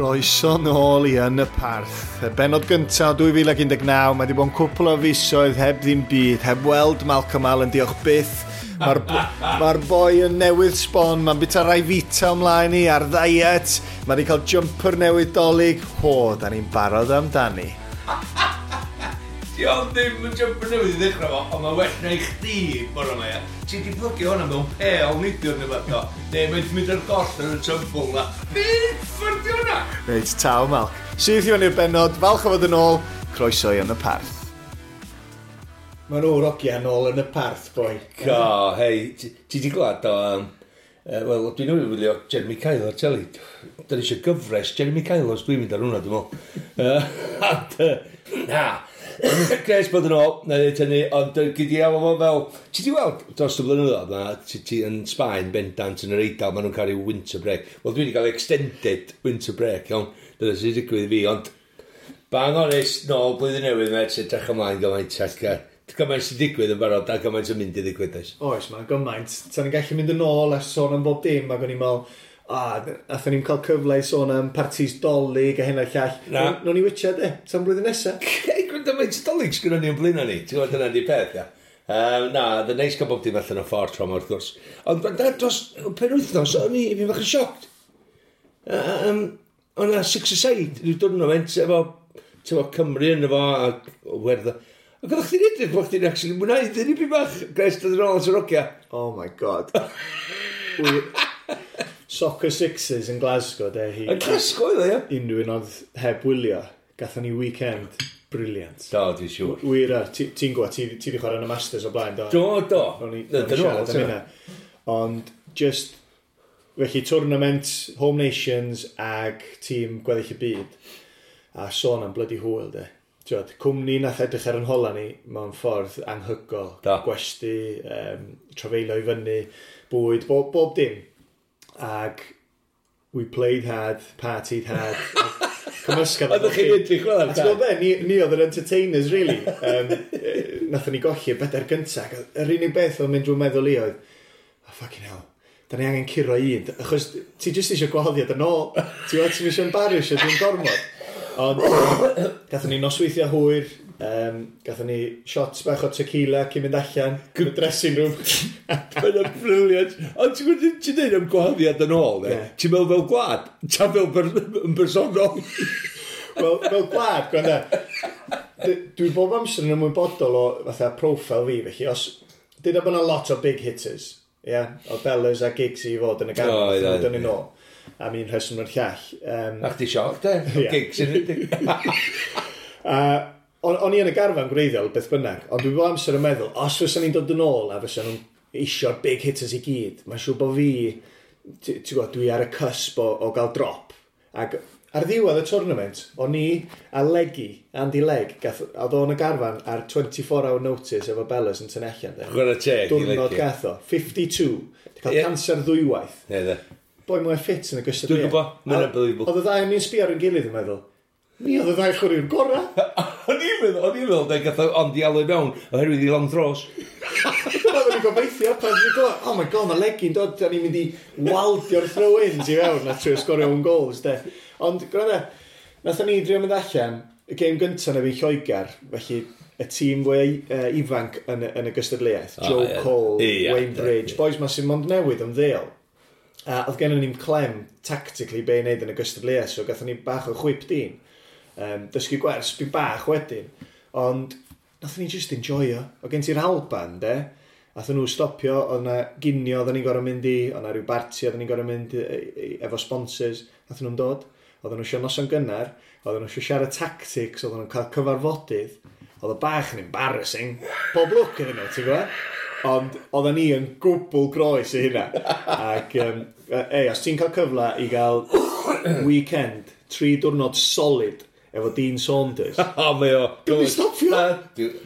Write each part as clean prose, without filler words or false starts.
Croeso nôl i Yn y Parth. Y benod gyntaf 2019, mae wedi bod yn cwpl o fisoedd heb ddim byd, heb weld Malcolm Allen, diolch byth. Mae'r ma boi yn newydd sbon, mae'n bita Ryvita ymlaen i ar ddiet, mae wedi cael jumper newydd Dolig. Ho, da ni'n barod amdani. Di o ddim yn jumper newydd i ddechrau fo, ond mae well na i chdi bore yma, ia. Ti di plygio hwnna mewn pel neidiwr neu beth o. Neu mae'n mynd ar goll yn y tymbl na. Be ffwrdd di hwnna? Reit, taw Malc. Syth i fyny i'r benod, falch o fod yn ôl, croeso i Yn y Parth. Mae nhw'r ogia nôl yn y parth, boi. Go, hei, ti di glad o... Wel, dwi'n newydd wylio Jeremy Kyle ar teli. Da ni eisiau gyfres Jeremy Kyle os dwi'n mynd ar hwnna, dwi'n meddwl. And, na, Gres bod yn ôl, na i ddweud hynny, ond gyd i alw fo fel... Ti di weld dros y blynyddoedd, ma, ti yn Sbaen, bendant, yn yr Eidal, maen nhw'n cael rhyw winter break. Wel, dwi wedi cael extended winter break, iawn. Dyna sy'n digwydd i fi, ond bang honest, nôl blwyddyn newydd, met, sy'n edrych ymlaen gymaint, ac gymaint sy'n digwydd yn barod, a gymaint yn mynd i ddigwydd, oes. Oes, mae'n gymaint. Ta'n ni'n gallu mynd yn ôl a sôn am bob dim, ac o'n i'n meddwl, a, nathon ni'n cael cyfle i sôn am partis Dolig a hyn a'r llall. Na. Nawn ni witcha, de, tan blwyddyn nesaf. Hei, gwrando faint o Dolig sgynnon ni yn blaen ni, ti'n gwybod dyna di peth, ia. Na, oedd yn neis cael bob dim allan o ffordd tro yma, wrth gwrs. Ond gwrando, dros penwythnos, o'n i fi bach yn shocked. O'n na six-a-side, rhyw tournament efo, ti'n efo Cymru yn efo, a Werddon. Ac oeddech chdi'n edrych bod chdi'n actually mwynhau dyn ni bach, Gres, dod yn ôl at yr ogia. Oh my God. Soccer Sixes yn Glasgow, de. Hi, Yn Glasgow oedd o, ia? Unrhyw un oedd heb wylio, gathon ni weekend brilliant. Do, dwi'n siŵr. Wir, ti'n gwybod, ti wedi chwarae yn y Masters o blaen, do? Do, do. O'n i Na, o'n i dyn nhw, siarad am ti'n hynna. Ond, just, felly, tournament, Home Nations ag tîm gweddill y byd. A sôn am bloody hwyl, de. Ti'wod, cwmni nath edrych ar yn hola ni mewn ffordd anhygoel. Do. Gwesty, trafeilio i fyny, bwyd, bob dim. Ag we played hard, partied hard. Cymysgedd. Oeddech chi'n edrych fel A ti'n gwybod be, ni oedd yr entertainers, really. Nathon ni golli y bedair gyntaf. Ac yr unig beth oedd mynd drwy meddwl i oedd, oh, fucking hell, da ni angen curo un. Achos ti jyst eisiau gwahoddiad yn ôl. Ti'n gwybod, ti'n eisiau embarrassio, dwi'n gormod. Ond gathon ni nosweithiau hwyr, gathon ni shots bach o tequila cyn mynd allan, yn y dressing room. Mae'n brilliant. Ond ti'n gwybod, ti'n dweud am gwahoddiad yn ôl, ne? Ie. Ti'n meddwl fel gwlad? Ta fel yn bersonol? Wel, fel gwlad, gwanda. Dwi bob amser yn ymwybodol o fatha profile fi, felly os... Dyna bod yna lot o big hitters, ie? Yeah? O Bellas a Giggs i fod yn y ganol, O, ie, oh, dyn ie. nhw nôl. Am un rheswm o'r llall. A chdi sioc, de? Ie. Gigs yn ydych. A o'n i yn y garfan gwreiddiol, beth bynnag, ond dwi bob amser yn meddwl, os fysa ni'n dod yn ôl a fysa nhw'n isio'r big hitters i gyd, mae'n siŵr bod fi, ti'n gwybod, dwi ar y cusp o gael drop. Ac ar ddiwedd y tournament, o'n i a Leggy, Andy Legg, gath, oedd o'n y garfan ar 24 hour notice efo Bellas yn tynnu allan. De. Chwarae teg i Diwrnod Leggy. gath o, 52, di cael Ie. cancer ddwywaith. Ne, de. Boi mwy ffit yn y gystadleuaeth. Dwi'n gwybod, mae'n A unbelievable. Oedd y ddau yn ni'n sbio ar ein gilydd yn meddwl, ni oedd y ddau chwaraewr gorau. O'n i'n meddwl, de, gath o ond i alw i mewn, oherwydd i long throws. Dyna oedden ni'n gobeithio pan ni'n gwybod, oh my God, mae Leggy'n dod, da ni'n mynd i waldio'r throw-ins i fewn a trio sgorio own goals, de. Ond, gwrando, nathon ni drio mynd allan, y gêm gyntaf na fi Lloegr, felly y tîm fwy ifanc yn y gystadleuaeth, Joe Cole, Wayne Bridge, boys ma sy'n mond newydd ymddeol. A oedd gennym ni'n clem tactically be i wneud yn y gystadleuaeth, so gathon ni bach o chwip dyn. Dysgu gwers bi bach wedyn, ond nathon ni just enjoyo. O gen ti'r Alban, de, nathon nhw stopio, oedd na ginio oedden ni'n gorfod mynd i, oedd na rhyw barti oedden ni'n gorfod mynd efo sponsors, nathon nhw'n dod. Oedden nhw eisiau noson gynnar, oedden nhw eisiau siarad tactics, oedden nhw'n cael cyfarfodydd. Oedd o bach yn embarrassing. Pob lwc iddyn nhw, ti'n gwybod? Ond oedden ni yn gwbl groes i hynna. Ac, ei, os ti'n cael cyfle i gael weekend, 3 diwrnod solid efo Dean Saunders. O, mae o. Dwi'm 'di stopio. Na,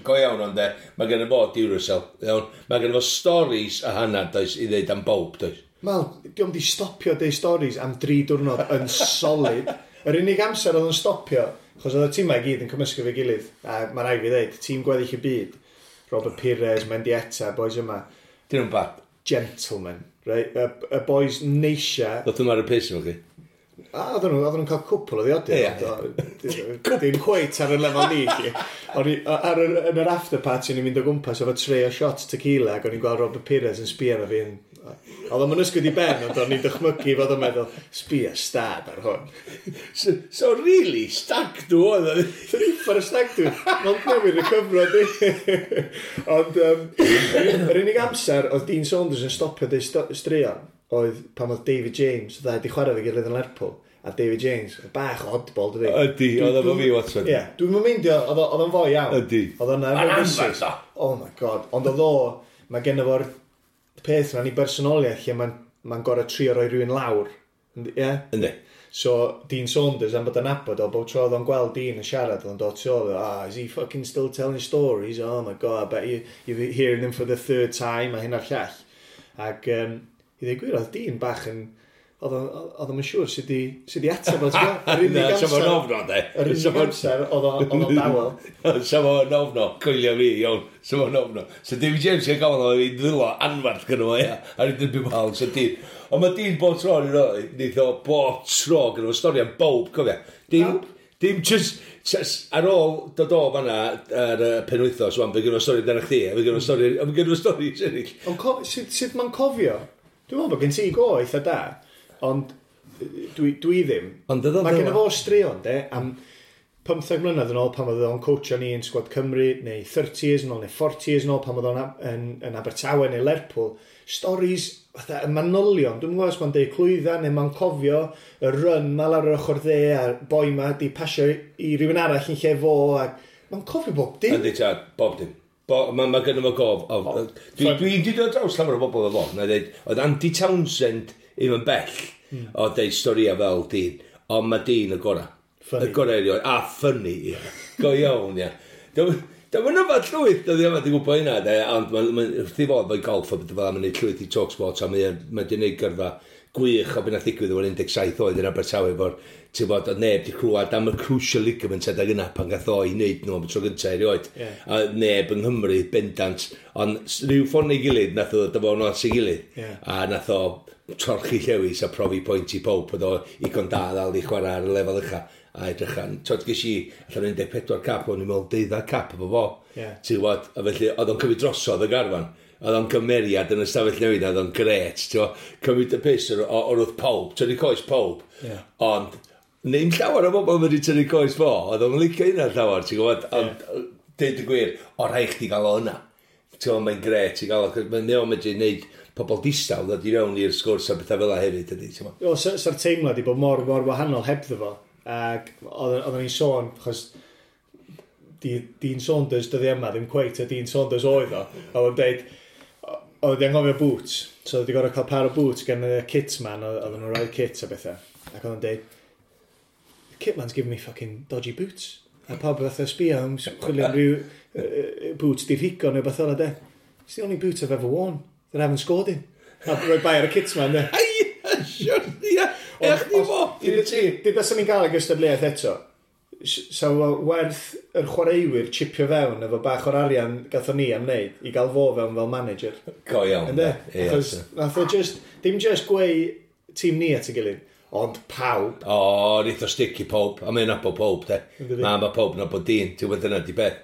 go iawn ond de, mae gen i fo Duracell, iawn. Mae gen i fo stories a hanner, does, i ddeud am bob, does. Mal, diolch di stopio deud stories am 3 diwrnod yn solid. Yr unig amser oedd yn stopio, achos oedd y tîmau i gyd yn cymysgu fe gilydd, a mae rhaid fi ddeud, tîm gweddill y byd, Robert Pires, Mendieta, boys yma, Dyn nhw'n bad. gentlemen, right? Y boys neisia. Ddoth nhw'n ar y piss efo chi. A oedden nhw'n cael cwpl o ddiodydd. Dim cweit ar y lefel ni, chi. O'n i, yn yr after party, o'n i'n mynd o gwmpas efo tray o shots tequila, ac o'n i'n gweld Robert Pires yn sbio arno fi. Oedd o'n ysgwyd i ben, ond o'n i'n dychmygu fod o'n meddwl, sbio stad ar hwn. So really, stag do oedd o. Dwi'n uffar y stag do. Ond newydd recoverio di. Ond yr unig amser oedd Dean Saunders yn stopio deud straeon oedd pan oedd David James, oedd wedi chwarae fe gilydd yn Lerpwl, a David James, oedd bach o oddball, dydi? Ydy, oedd efo fi, Watson. Ie, dwi'n meindio, oedd o'n fwy iawn. Ydy. Oedd o'n Ma'n efo anferth fysys. o. Oh my God. Ond oedd o, mae genno fo'r peth yna'n ei bersonoliaeth lle mae'n gorau trio roi rhywun lawr. Ie? Yndi. So, Dean Saunders, am bod yn nabod o, bob tro oedd o'n gweld Dean yn siarad, oedd o'n dod tu ôl, "Ah, is he fucking still telling stories? Oh my God, I bet you're hearing them for the third time," a hyn a'r llall. Ac, i ddweud gwir, oedd Dean bach yn, oedd o'n siŵr sut i ateb o, ti'n gwbod? Yr unig Na, sa fo'n amser, ofno, de. yr unig amser, oedd o'n dawel. Sa fo'n ofno, coelio fi, iawn. Sa fo'n ofno. So David James yn gofyn o'n i ddwylo anferth gyda fo, ia. A ni'n dweud wal, so Dean. Ond mae Dean bob tro yn rhoi, neith o bob tro gyda fo stori am bob, cofia. Dim just ar ôl dod o fanna ar y penwythnos, wan, fe gyda fo stori amdano chdi, a fe gyda fo stori, a fe gyda fo stori eraill. Ond sut mae'n cofio? Dwi'n meddwl bod gen ti go eitha da, ond dwi ddim. Ond oedd o'n Mae gen fel fo straeon, de, am 15 mlynedd yn ôl pan oedd o'n coachio ni yn sgwad Cymru, neu 30 years yn ôl, neu 40 years yn ôl pan oedd o'n yn Abertawe neu Lerpwl. Stories, fatha, y manylion, dwi'n gwybod os mae'n deud clwydda neu mae'n cofio y run ma lawr yr ochr dde a'r boi ma di pasio i rywun arall yn lle fo, ac mae'n cofio bob dim. Yndi, tad, bob dim. Mae gynno fo gof. Dwi di dod draws llawer o bobl efo fo. Na dweud, oedd Andy Townsend ddim yn bell o deud storïa fel Dean. Ond mae Dean y gorau. Funny. Y gorau erioed. A funny, ia. Go iawn, ia. Dwi'n yfad llwyth, dwi ddim yn gwybod hynna, de, ond mae'n ma, wrth i fod mae'n golf a beth fel mae'n neud llwyth i Talksport, a mae'n ma di neud gyrfa gwych o beth nath ddigwydd o'r 17 oed yn Abertawe efo'r, ti'n bod, oedd neb di clywed am y crucial ligament adeg yna pan gath o i wneud nhw am y tro gyntaf erioed. A neb yng Nghymru bendant, ond rhyw ffordd neu gilydd nath o ddod â fo at ei gilydd. A nath o torchi llewis a profi pwynt i pawb bod o igon da ddal i chwarae ar y lefel ucha a edrych an. Tod, ges i allan 14 cap, o'n i'n meddwl 12 cap efo fo. Ti'n gwbod, a felly oedd o'n cymryd drosodd y garfan. Oedd o'n gymeriad yn y stafell newid, oedd o'n gret, ti'n gwbod, cymryd y piss o'r wrth pawb, tynnu coes pawb. Ond, ddim llawer o bobl wedi tynnu coes fo, oedd o'n licio hynna llawer, ti'n gwbod, ond deud y gwir, o rhaid chdi gael o yna. Ti'n gwbod, mae'n gret i gael o, 'cos mae'n o'n medru gwneud pobl distaw ddod i fewn i'r sgwrs a bethau fel 'a hefyd, ydy, ti'n gwbod. O, sa'r teimlad i bod mor, mor wahanol hebddo fo. Ac oedden ni'n sôn, achos Dean Saunders dyddi yma, ddim cweit y Dean Saunders oedd o. Oedd o'n deud, oedd wedi anghofio boots, so oedd wedi gorfod cael par o boots gan y kitman, oedden nhw'n rhoi kit a bethau. Ac oedd o'n deud, "The kitman's giving me fucking dodgy boots." A pawb fatha sbio am chwilio am ryw boots di rhigo neu beth o'na de. "It's the only boots I've ever worn that I haven't scored in." A rhoi bai ar y kitman de. Ai, siwr, ia, ech ni fo, i'r ti. Dyd os ni'n gael y gystadleuaeth eto, sa fo werth yr chwaraewyr chipio fewn efo bach o'r arian gathon ni am wneud i gael fo fewn fel manager. Go iawn. Ynde? Ie, Achos nath o just, dim just gweu tîm ni at ei gilydd, ond pawb. O, neith o stick i pawb, a mae'n nabod pawb, de. Yndydi? Na, mae pawb nabod Dean, ti'n gwybod dyna di beth.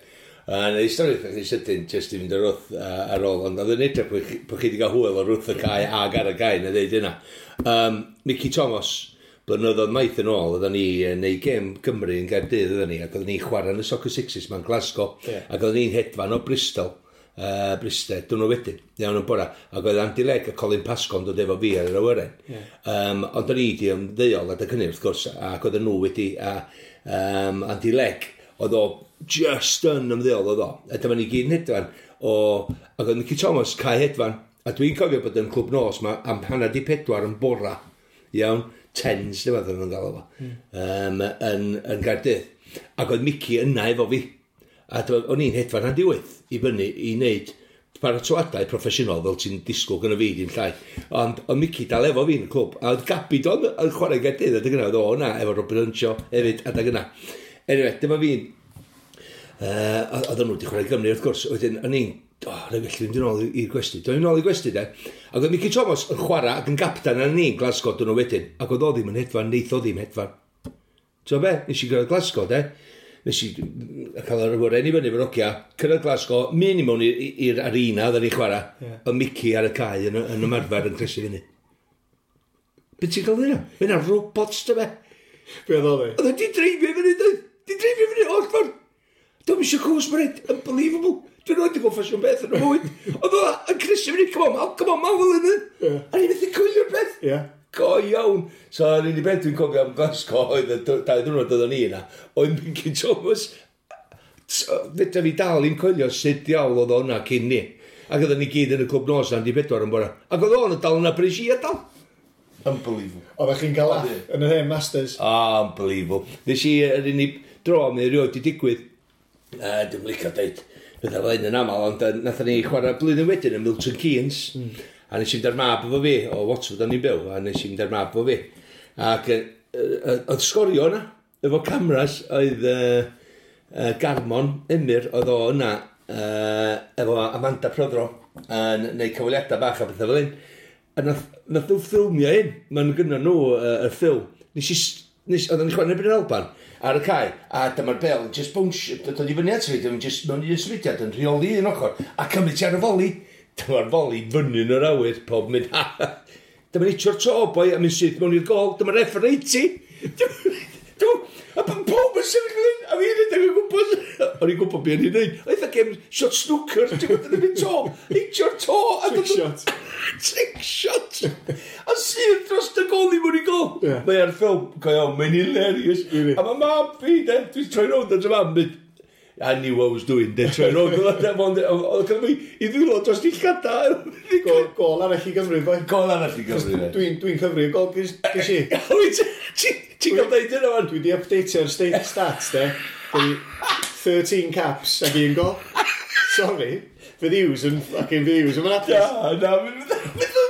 A na i stori eitha sydyn, jyst i fynd ar wrth ar ôl, ond oedd yn edrych bod chi wedi cael hwyl o'r wrth y cae ag ar y cae, na ddeud yna. Mickey Thomas, blynyddoedd maith yn ôl, oedden ni yn neud gêm Gymru yn Gaerdydd, oedden ni, ac oedden ni'n chwarae yn y Soccer Sixes ma'n Glasgow, ac oedden ni'n hedfan o Bristol, Bristol, dyn nhw wedyn, iawn yn bora, ac oedd Andy Legg a Colin Pascoe yn dod efo fi ar yr awyren. Ond o'n i di ymddeol adeg hynny, wrth gwrs, ac oedden nhw wedi, a Andy Legg, oedd o just yn ymddeol oedd o. A dyma ni gyd yn hedfan, ac oedd Mickey Thomas cae hedfan, a dwi'n cofio bod yn clwb nos ma am 3:30 yn bora, iawn, tens, dwi'n meddwl nhw'n gael o, yn Gaerdydd. Ac oedd Mickey yna efo fi. A o'n i'n hedfan 7:30 i fyny i wneud paratoadau proffesiynol fel ti'n disgwyl gyda fi, dim llai. Ond oedd Mickey dal efo fi yn y clwb. A oedd Gabi Don yn chwarae Gaerdydd adeg yna, oedd o yna efo Robert Earnshaw hefyd adeg yna. Anyway, dyma fi'n Oedden nhw wedi chwarae Gymru, wrth gwrs. Wedyn, o'n i'n, oh, na felly, mynd yn ôl i'r gwesti. Dwi'n ôl i'r gwesti, de. Ac oedd Mickey Thomas yn chwarae ac yn gaptan ar ni'n Glasgow dyn nhw wedyn. Ac oedd o ddim yn hedfan, neith o ddim hedfan. Ti'n be? Nes i gyrraedd Glasgow, de. Nes i cael yr awyren i fyny efo'r ogia, cyrraedd Glasgow, mynd i mewn i'r arena oedden ni chwarae, yeah. Y Mickey ar y cae yn ymarfer yn cresu fyny. Be ti'n gael hynna? Mae hynna robots, dy be? Be oedd o ddi? Oedd wedi dreifio fyny, dweud. Di dreifio fyny, oll ffordd. Dwi'n eisiau cwrs, mae'n unbelievable. Dwi'n rhaid i gweld ffasiwn beth yn y mywyd. Oedd o yn cresu fyny, come on, Mal, come on, Mal, fel hynny. A ni'n methu coelio'r beth. Yeah. Go iawn. So, yr unig beth dwi'n cofio am Glasgow oedd y 2 diwrnod oedden ni yna, oedd Mickey Thomas. Fedra fi dal i'n coelio sut diawl oedd o yna cyn ni. Ac oedden ni gyd yn y clwb nos na'n di 4 yn bora. Ac oedd o'n dal yna brys i a dal. Unbelievable. Oeddech chi'n cael laff yn yr hen Masters? Unbelievable. Nes i, yr unig dro mi erioed di digwydd, dwi'n licio deud pethau fel hyn yn aml, ond nathon ni chwarae blwyddyn wedyn yn Milton Keynes. A nes i fynd ar mab efo fi, o Watford o'n i'n byw, a nes i fynd ar mab efo fi. Ac oedd sgorio yna, efo cameras, oedd Garmon Emyr, oedd o yna, efo Amanda Prothero, yn neud cyfweliadau bach a pethau fel hyn. A nath nhw ffilmio hyn, ma'n gynno nhw y ffilm. Nes, oedden ni chwarae yn erbyn yr Alban ar y cae, a dyma'r bel yn just bounce, dod i fyny at fi, dyma'n just mewn un symudiad yn rheoli un ochr, a cymryd ti ar y foli. Dyma'r foli fyny yn yr awyr, pob mynd, ha, dyma'n hitio'r to, boi, a mynd syth mewn i'r gol, dyma'r referee ti. A pob yn sefyll yn hyn, a fi'n rhedeg o gwmpas. O'n i'n gwybod beth o'n i'n neud. Oedd a game shot snooker, ti'n gwybod, yn mynd to, hitio'r to. Trick shot. Trick shot. A sydd dros y gol i mewn i gol. Mae ar ffilm, go iawn, mae'n hilarious. Really? A mae mam fi, de, dwi'n troi rownd at y mam, mynd, "I knew what I was doing," de, troi rownd. Oedd gyda fi i ddwylo dros i llada. Gol arall i Gymru, boi. Gol arall i Gymru, de. Dwi'n cyfri y gol ges i. Wyt ti'n cael deud hynna, man? Dwi di updateio'r state stats, de. Dwi 13 caps ag un gol. Sorry. Fydd Hughes yn fucking fydd Hughes yn hapus. Na, na,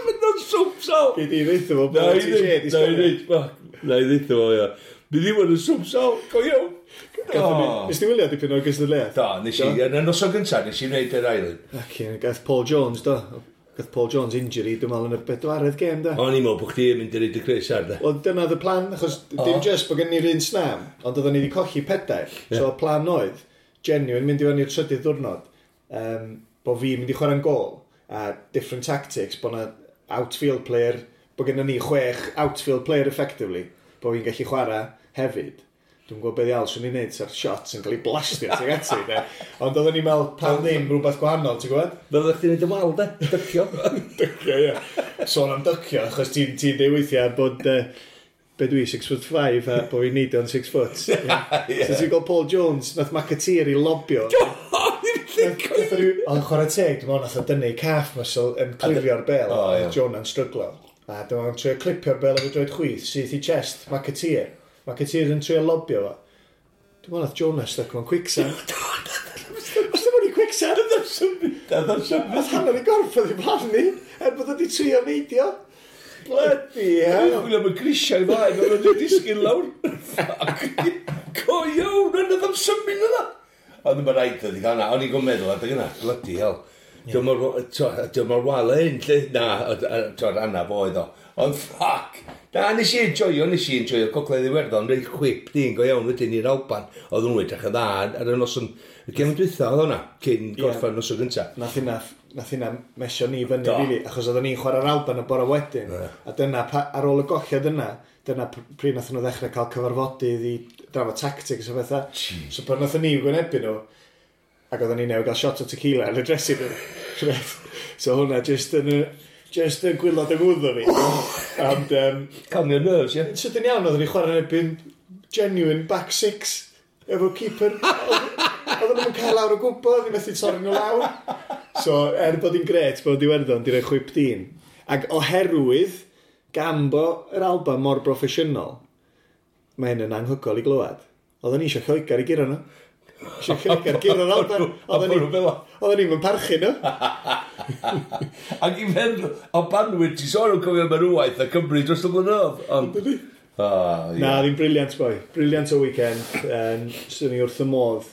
mynd o'n swp sal. Gei di ddeutha fo Na bod i ti ddeud, di na i sgorio. ddeud, fuck, na i ddeud fo, ia. Bydd ddim yn swp sal, go iawn. Nes ti wylio dipyn o'r gystadleuaeth? Da, nes i, yn y noson gyntaf, nes i wneud yr ail un. Ac gath Paul Jones, do. Gath Paul Jones injury, dwi'n meddwl, yn y bedwaredd gêm, da. O'n i'n meddwl bod chdi yn mynd i reid y crys ar, da. Wel, dyna the plan, achos dim just bod gen ni'r un snam, ond oedden ni wedi colli pedair. So, y plan oedd, genuine, mynd i fewn i'r trydydd diwrnod, bod fi mynd i chwarae'n gol, a different tactics, bod na outfield player, bod gennym ni chwech outfield player effectively, bod fi'n gallu chwarae hefyd. Dwi'n gwybod beth iawn swn i'n neud, sa'r shots yn cael ei blastio tuag ati, de. Ond oedden ni'n meddwl, pam ddim rhywbeth gwahanol, ti'n gwybod? Fel ydych chdi'n neud y wal, de? Dycio. Dycio, ie. Sôn am dycio, achos ti'n ti dweud weithiau bod, be dwi, 6 foot 5, a bod fi'n neud o'n 6 foot. Yeah. So ti'n gweld Paul Jones, nath McAteer i lobio. Ond chwarae teg, dwi'n meddwl nath o dynnu calf muscle yn clirio'r bel, O, ie. a Jonah'n stryglo. A dwi'n meddwl trio clipio'r bel efo droed chwith, syth i chest, McAteer. McAteer yn trio lobio fo. Dwi'n meddwl nath Jonah stuck mewn quicksand. Os ddim o'n i quicksand, nath hanner i gorff oedd i blaen ni, er bod wedi trio neidio. Bloody hell. Chwilio am y grisiau flaen, oedd o'n disgyn lawr. Fuck. Go iawn, yna ddim symud yna. Ond mae'n rhaid oedd i gael yna, o'n i'n gwybod meddwl adeg yna, bloody hell. Dwi'n mor wael hyn, lle? Na, ti'n anaf oedd o. Ond fuck! Na, nes i enjoyo Gogledd Iwerddon, reit chwip dyn go iawn wedyn i'r Alban. Oedd nhw'n edrych yn dda ar y noson, y gem dwytha oedd hwnna, cyn gorffan noson gynta. Nath hynna mesio ni fyny, Do. really, achos oedden ni'n chwarae'r Alban y bore wedyn. A dyna, ar ôl y golliad yna, dyna pryd nath nhw ddechrau cael cyfarfodydd i drafod tactics a bethau. So pan nath ni gwynebu nhw, ac oedden ni newydd gael shot o tequila yn y dressing room. Reit. So hwnna just yn just yn gwylod yng ngwddw fi. And, Calm your nerves, ie? Sydyn iawn, oedden ni chwarae'n erbyn genuine back six efo keeper. Oedden nhw'n cael lawr o gwbl, oedden ni methu torri nhw lawr. So, er bod hi'n gret bod Iwerddon di roi chwip dyn. Ac oherwydd gan bo yr Alban mor broffesiynol, mae hyn yn anhygoel i glywed. Oedden ni eisiau Lloegr i guro nhw. Eisiau Lloegr guro'r Alban. A bod nhw fel 'a. Oedden ni'n parchu nhw. Ac i feddwl, Albanwyr, ti'n sôn am cofio marwwaith a Cymru dros y blynyddoedd. Ond... Ah, ie. Na, ddim brilliant boi. Brilliant o weekend. Swn i wrth y modd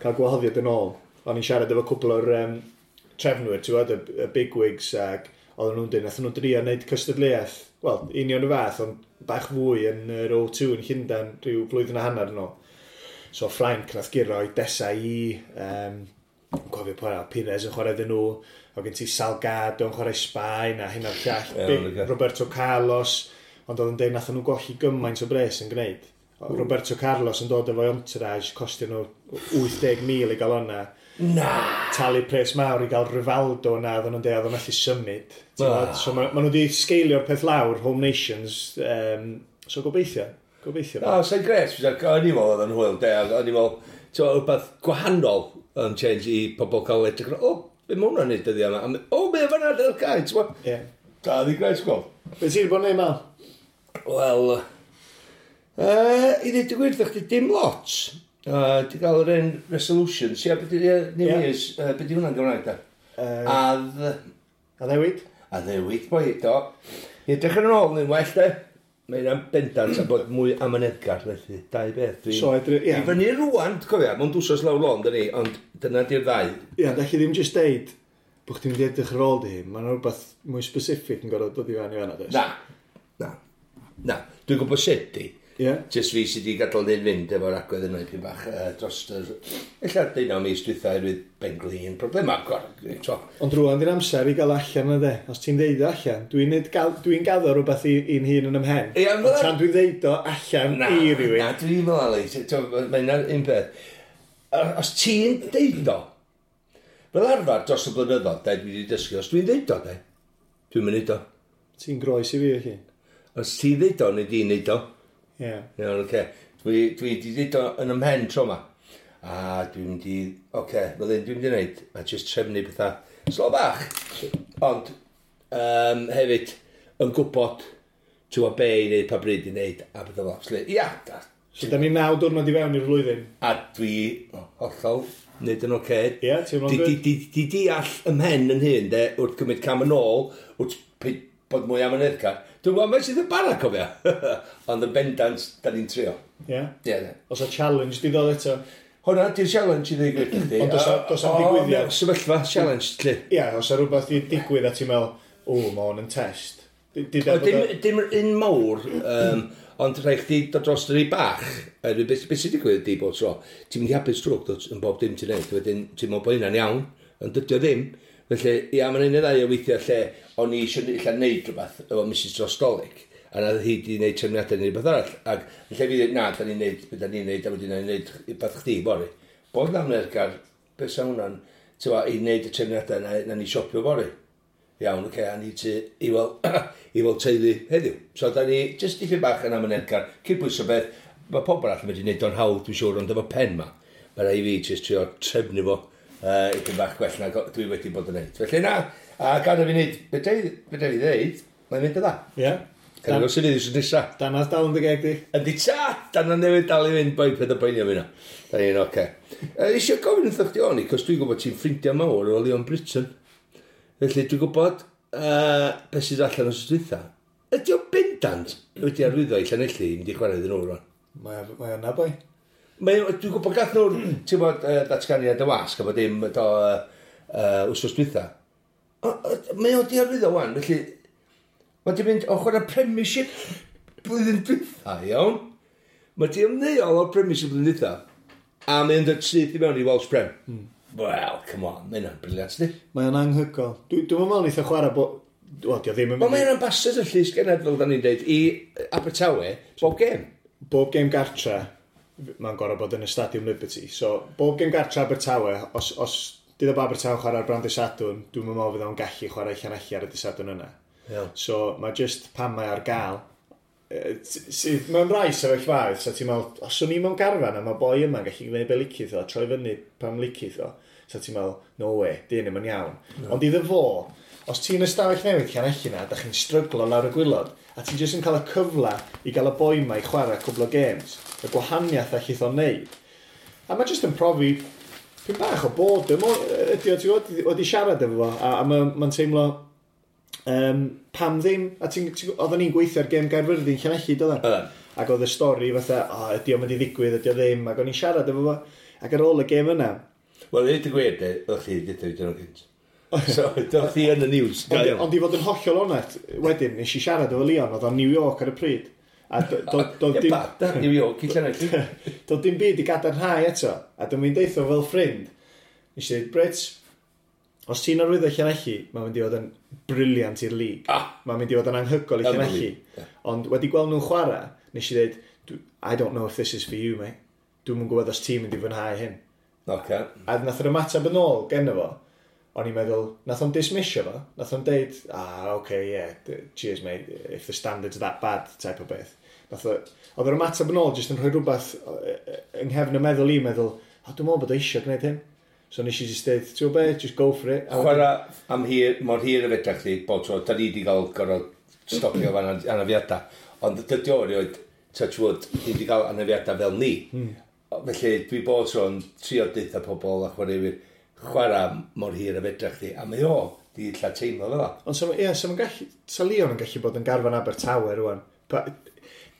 cael gwahoddiad yn ôl. O'n i'n siarad efo cwpl o'r trefnwyr, ti'n gwybod, y bigwigs, ac oedden nhw'n dweud, nath nhw drio wneud cystadleuaeth, wel, union y fath, ond bach fwy yn yr O2 yn Llundain rhyw flwyddyn a hanner yn ôl. So Ffrainc nath guro i Desailly, cofio pwy arall, Pires yn chwarae iddyn nhw, o gen ti Salgado yn chwarae Sbaen a hyn a'r llall, Roberto Carlos, ond oedd yn dweud nath nhw golli gymaint o bres yn gwneud. Roberto Carlos yn dod efo'i entourage, costio nhw 80,000 i gael o'na. Na! Talu pres mawr i gael Rivaldo na, oedden nhw'n dweud, oedd o'n methu symud. So ma nhw wedi sgeilio'r peth lawr, Home Nations, so gobeithio. Gobeithio. O, sa'n gret, o'n i'n meddwl oedd yn hwyl, de, o'n i'n meddwl, ti'n meddwl, rhywbeth gwahanol yn change i pobl cael edrych, o, be mae hwnna'n neud dyddiau yma? O, be fan'na, dy'r cae, ti'n meddwl? Ie. Da, di gret, gweld. Be ti wedi bod yn neud, Mal? Wel, i ddweud y gwir, ddech chi dim lot. Di gael yr un resolutions, ia, beth di, New Year's, beth di hwnna'n Gymraeg, da? Addewid? Addewid, boi, do. I edrych yn ôl yn well, de. Mae hynna'n bendant a bod mwy amyneddgar, felly, dau beth. So, edrych, ie. I fyny rwan, cofia, mewn dwsos lawr lôn, dyn ni, ond dyna di'r ddau. Ie, da chi ddim jyst deud bod chdi'n mynd i edrych ar ôl di hun. Mae'n rhywbeth mwy specific yn gorfod dod i fewn i fan'na, does? Na, na, na. Dwi'n gwybod sut di. Ie. Jyst fi sydd wedi gadael hyn fynd efo'r agwedd yna ipyn bach dros yr... Ella 19 mis dwytha oherwydd benglin, problemau, to. Ond rwan di'r amser i gael allan yna de. Os ti'n deud o allan, dwi'n dwi gaddo rhywbeth i'n hun yn ymhen. Ie, Ond tan dwi'n deud o allan Na, i rywun. na, dwi'n meddwl, Ali, mae'n un peth. Os ti'n deud o, fel arfer dros y blynyddoedd, de, dwi wedi dysgu, os dwi'n deud o, de, dwi'n mynd o. Ti'n groes i fi, felly. Os ti'n deud o, neu di'n deud o. Ie. Iawn, oce. Dwi wedi deud o yn ymhen tro ma. A dwi'n mynd i, oce, fel hyn dwi'n mynd i wneud, a jyst trefnu pethau slo bach. Ond, hefyd, yn gwybod, ti'n gwybod be i wneud, pa bryd i wneud, a pethau fel. So, ia, da. So, da ni 9 diwrnod i fewn i'r flwyddyn. A dwi hollol wneud yn oce. Ie, ti'n meddwl Di, good? di deall ymhen yn hyn, de, wrth gymryd cam yn ôl, wrth bod mwy amyneddgar. Dwi'n gwybod, mae sydd yn bara, cofia. Ond yn bendant, da ni'n trio. Ie. Ie, de. Os a challenge di ddod eto. Hwna, di'r challenge i ddweud gwir i chdi. Ond does 'am digwyddiad. Sefyllfa, challenge, lle. Ie, os a rhywbeth di digwydd a ti'n meddwl, o, mae hwn yn test. Di O, dim un mawr, ond rhaid chdi dod dros yr un bach. Beth sy'n digwydd ydi bob tro, ti'n mynd i hapus drwg dod yn bob dim ti'n neud, wedyn ti'n meddwl bod hynna'n iawn, ond dydy o ddim. Felly, ia, mae'n un neu ddau o weithiau lle o'n i eisiau ella neud rhywbeth efo Mrs Drostolig, a na hi di wneud trefniadau neu rhywbeth arall. Ac yn lle fi ddweud, na, da ni'n neud, be da ni'n neud, a wedyn ni'n neud rhywbeth chdi, bori. Bod na amyneddgar, beth sa hwnna'n, ti'n gwbod, i wneud y trefniadau na ni siopio bori. Iawn, oce, a ni ti i weld, i weld teulu heddiw. So, da ni jyst dipyn bach yn amyneddgar, cydbwyso beth, mae pobl arall yn medru neud o'n hawdd, dwi'n siŵr, ond efo pen ma, mae rhaid i fi jyst trio trefnu fo ipyn bach gwell na dwi wedi bod yn neud. Felly na, a gan i fi wneud, be dwi ddeud, mae'n mynd yn dda. Ie. Cael ei sydd wythnos nesa. Danadd dal yn dy geg di. Yndi ta, dan newydd dal i fynd, boi, peth o boeni am hynna. Da ni'n oce. Eisiau gofyn wrtho chdi o'n i, cos dwi'n gwybod ti'n ffrindiau mawr o Leon Britton. Felly dwi'n gwybod beth sydd allan o'r dwytha. Ydy o bendant wedi arwyddo i Llanelli i mynd i chwarae iddyn nhw rwan? Mae yna, boi. Dwi'n gwybod gath nhw'r, ti'n bod, datganiad y wasg a bod dim do, wsos dwytha. Mae o di arwyddo wan, felly mae di mynd o chwarae Premiership blwyddyn dwytha, iawn? Mae di ymddeol o'r Premiership blwyddyn dwytha a mae'n dod syth i mewn i Welsh Prem. Wel, come on, mae hynna'n brilliant, di. Mae o'n anghygol. Dwi'n meddwl neith o chwarae bo... Wel, di o ddim yn Wel, mynd i... mae'n ambassador llys gened, fel da ni'n deud, i Abertawe, bob gêm. Bob gêm gartra, mae'n gorfod bod yn y Stadium Liberty. So, bob gêm gartra Abertawe, os dydd o Abertawe chwarae ar brand y Sadwrn, dwi'n meddwl fydd o'n gallu chwarae Llanelli ar y dydd Sadwrn yna. Iawn. So, mae just pan mae ar gael, sydd mewn rai sefyllfaoedd, so ti'n meddwl, os o'n i mewn garfan a mae boi yma'n gallu gwneud be licith o, troi fyny pan licith o, so ti'n meddwl, no way, dyn ddim yn iawn. No. Ond iddo fo, os ti'n ystafell newydd Llanelli na, da chi'n stryglo lawr y gwilod, a ti'n jyst yn cael y cyfle i gael y boi ma i chwarae cwbl o games, y gwahaniaeth allith o'n neud. A mae jyst yn profi pyn bach o boredom ydy o, ti'n gwybod, wedi siarad efo fo, a mae'n teimlo pam ddim, a oedden ni'n gweithio ar gêm Gaerfyrddin Llanelli, doedden? Oedden. Ac oedd y stori fatha, o, ydy o'n mynd i ddigwydd, ydy o ddim, ac o'n i'n siarad efo fo. Ac ar ôl y gêm yna... Wel, i ddweud y gwir, de, o'ch chi wedi dweud nhw gynt. So, doedd chi yn y news. Ond i fod yn hollol onest, wedyn, nes i siarad efo Leon, oedd o'n New York ar y pryd. A doedd dim... New York, i Llanelli. Doedd dim byd i gadarnhau eto. A dwi'n mynd deitho fel ffrind. Nes i dweud, Brits, os ti'n arwyddo Llanelli, mae'n mynd i fod yn brilliant i'r lig. Ah. Mae'n mynd i fod yn anhygoel i Llanelli. Yeah. Ond wedi gweld nhw'n chwarae, nes i dweud, I don't know if this is for you, mate. Dwi'm yn gwybod os ti'n mynd i fwynhau hyn. Okay. A nath yr ymateb yn ôl genno fo, o'n i'n meddwl, nath o'n dismissio fo, nath o'n deud, ah, okay, yeah, cheers mate, if the standard's that bad, type o beth. Nath o, oedd yr ymateb yn ôl jyst yn rhoi rhywbeth yng nghefn y meddwl i, meddwl, o, dwi'n meddwl bod o eisiau gwneud hyn. So nes i just deud, ti'n gwybod be, just go for it. A chwarae am hir, mor hir y fedra chdi, bob tro, da ni wedi cael gorfod stopio fan anafiadau. Ond dydy o erioed, touch wood, ni wedi cael anafiadau fel ni. Felly dwi bob tro'n trio deutha pobl a chwaraewyr chwarae mor hir y fedra chdi. A mae o, di illa teimlo fel o. Ond so, ie, so gallu, sa Leon yn gallu bod yn garfan Abertawe rwan.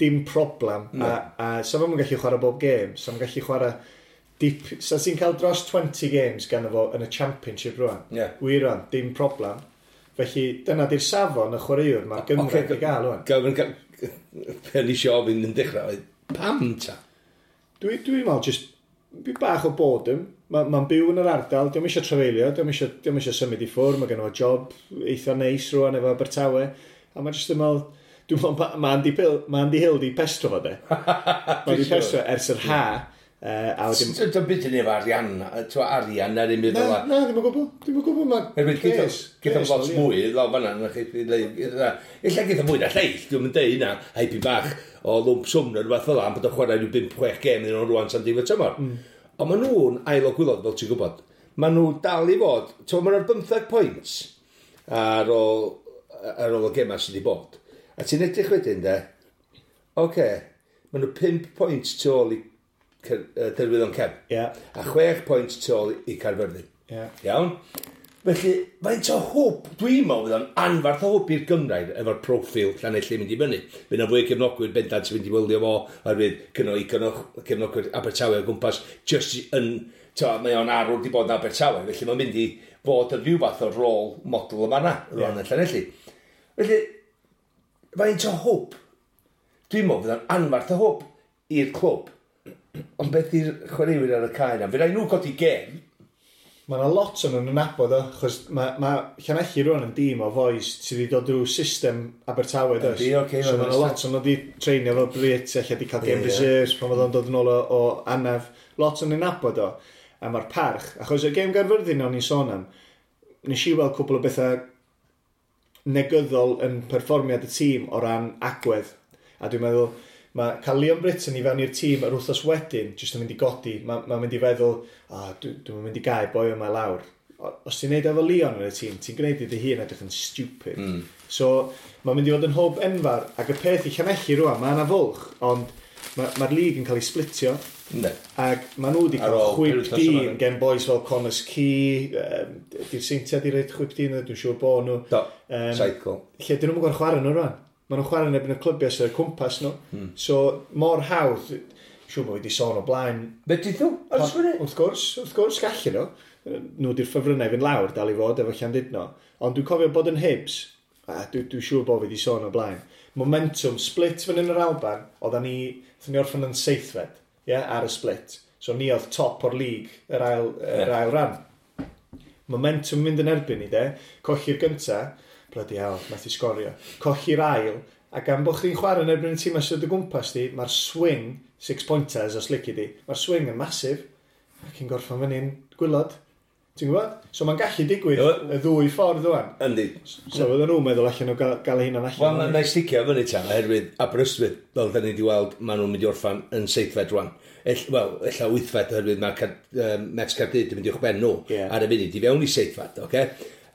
Dim problem. No. A sa fo'n gallu chwarae bob gêm. Sa fo'n gallu chwarae dip, sa ti'n cael dros 20 games gan fo yn y championship rwan. Yeah. Wir rwan, dim problem. Felly dyna di'r safon y chwaraewr mae'r Gymraeg okay, i gael rwan. Gofyn, pe ni eisiau ofyn yn dechrau, pam ta? Dwi'n dwi meddwl, just bach o boredom. Mae'n ma byw yn yr ardal, diolch eisiau trafeilio, diolch eisiau, diolch eisiau symud i ffwrdd, mae gen fo job eitha neis rwan efo Abertawe. A mae'n just yn meddwl, dwi'n meddwl, mae Andy, Pill, ma Andy Hill di pestro fo de. Mae di pestro ers yr ha. A wedyn... Dwi'n byd yn efo arian, ti'n arian ar un fel Na, na, ddim yn gwybod. Ddim yn gwybod, mae pres. Gyda lot mwy, lawr fan'na, na chi, ella gyda mwy na lleill, dwi'n mynd deud hynna, haipyn bach o lwmp swm neu rhywbeth fel 'na, bod o'n chwarae rhyw 5-6 gêm iddyn nhw rwan tan diwedd tymor. Ond maen nhw'n ail o gwaelod, fel ti'n gwybod. Maen nhw dal i fod, ti'n maen nhw'r 15 pwynt ar ôl, ar ôl y gemau sydd wedi bod. A ti'n edrych wedyn, de, oce, okay, maen nhw 5 pwynt tu ôl i Derwyddon Cefn. Yeah. A 6 pwynt tu ôl i Caerfyrddin. Yeah. Iawn? Felly, faint o hwb, dwi'n meddwl fydd o'n anfarth o hwb i'r Gymraeg efo'r proffil Llanelli mynd i fyny. Fydd yna fwy o gefnogwyr bendant sy'n mynd i wylio fo, oherwydd gynno i gefnogwyr Abertawe o gwmpas, just yn, to, mae o'n arwr di bod yn Abertawe, felly mae'n mynd i fod yn rhyw fath o rôl model yma na, rhan yeah. yn Llanelli. Felly, faint o hwb, dwi'n meddwl fydd o'n anfarth o hwb i'r clwb. Ond beth i'r chwaraewyr ar y cae na? Fydd rhaid nhw godi gêm. Mae yna lot o'n nhw'n nabod o, achos mae ma Llanelli rwan yn dîm o fois sydd wedi dod drwy system Abertawe, does? Yndi, ocê, So mae yna lot o'n nhw wedi treinio efo Brit, ella wedi cael game reserves pan oedd o'n dod yn ôl o anaf. Lot o'n nhw'n nabod o, a mae'r parch, achos y gêm Gaerfyrddin o'n i'n sôn am, nes i weld cwpl o bethau negyddol yn perfformiad y tîm o ran agwedd. A dwi'n meddwl, mae cael Leon Britton i fewn i'r tîm yr wythnos wedyn, jyst yn mynd i godi, mae'n ma mynd i feddwl, oh, dwi'n dwi mynd i gael boi yma lawr. Os ti'n neud efo Leon yn y tîm, ti'n gwneud i dy hun edrych yn stupid. So, mae'n mynd i fod yn hwb enfawr, ac y peth i Llanelli rwan, mae yna fwlch, ond mae'r ma lig yn cael ei splitio. Yndi. Ac maen nhw wedi cael chwip dyn gen boys fel Connors Key, di'r Seintiau di roed chwip dyn, dwi'n siŵr bod nhw. Do, cycle. Lle, dyn nhw'n gwybod chwarae nhw rwan. Maen nhw'n chwarae yn erbyn y clybiau sydd o'r cwmpas nhw. So, mor hawdd, siŵr bod wedi sôn o blaen. Fedrith nhw? Wrth gwrs, wrth gwrs, gallu nhw. Nhw di'r ffefrynnau fynd lawr, dal i fod efo Llandudno. Ond dwi'n cofio bod yn Hibs, a dwi'n dwi siŵr bod fi wedi sôn o blaen. Momentum, split fan yn yr Alban, oedden ni, oedden ni orffen yn seithfed, yeah, ar y split. So ni oedd top o'r league, yr ail, yr ail ran. Momentum mynd yn erbyn ni, de. Colli'r gynta, bloody hell, nath i sgorio. Colli'r ail, a gan bod chdi'n chwarae yn erbyn y tîm sydd o gwmpas di, mae'r swing, six pointers os lici di, mae'r swing yn masif, ac yn gorffen fyny'n gwaelod. Ti'n gwybod? So mae'n gallu digwydd y ddwy ffordd rwan. Yndi. So fydden nhw'n meddwl allan nhw gael, gael eu hunan allan. Wel, na i sticio fyny ta, oherwydd Aberystwyth, fel da ni wedi weld, maen nhw'n mynd i orffan yn seithfed rwan. Wel, ella wythfed, oherwydd mae Met Caerdydd yn mynd i uwchben nhw ar y funud, i fewn i seithfed, oce?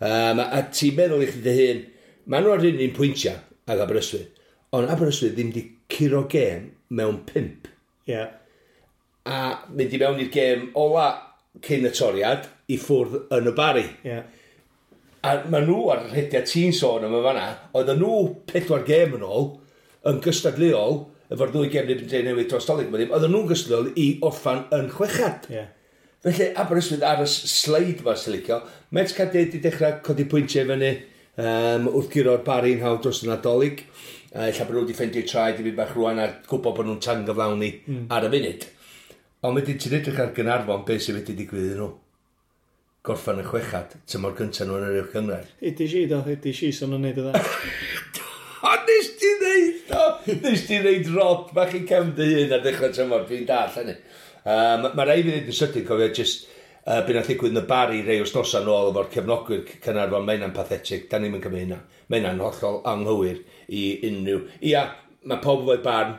A ti'n meddwl i chdi dy hun, maen nhw ar un un pwyntiau ag Aberystwyth, ond Aberystwyth ddim wedi curo gêm mewn 5. A mynd i mewn i'r gêm ola cyn y toriad i ffwrdd yn y Bari. A maen nhw ar y rhediad ti'n sôn am y fanna, oedden nhw 4 gêm yn ôl yn gystadleuol efo'r ddwy gem yn Drenewydd dros Dolig, oedden nhw'n gystadleuol i orffan yn chwechad. Yeah. Felly, Aberystwyth ar y sleid ma sy'n licio. Met Caerdydd wedi dechrau codi pwyntiau fyny wrth guro'r Barri'n hawdd dros y Nadolig. Ella bod nhw wedi ffeindio traed i fi bach rwan a gwybod bod nhw'n tangyflawni ar y funud. Ond wedyn ti'n edrych ar Gaernarfon, beth sydd wedi digwydd iddyn nhw? Gorffan y chwechad, tymor gyntaf nhw yn yr uwch gynghrair. Ydy si, do, ydy si, so nhw'n neud o dda. O, nes ti ddeud o! Nes ti ddeud rod bach i cefn dy hun ar ddechrau tymor, dwi'n dall hynny. Mae rai fi ddeud yn sydyn, cofio, just be nath ddigwydd yn y Barri rei wythnosau nôl efo'r cefnogwyr Caernarfon, mae hynna'n pathetic, da ni'n cymryd hynna. Mae hynna'n hollol anghywir i unrhyw. Ia, mae pob efo'i barn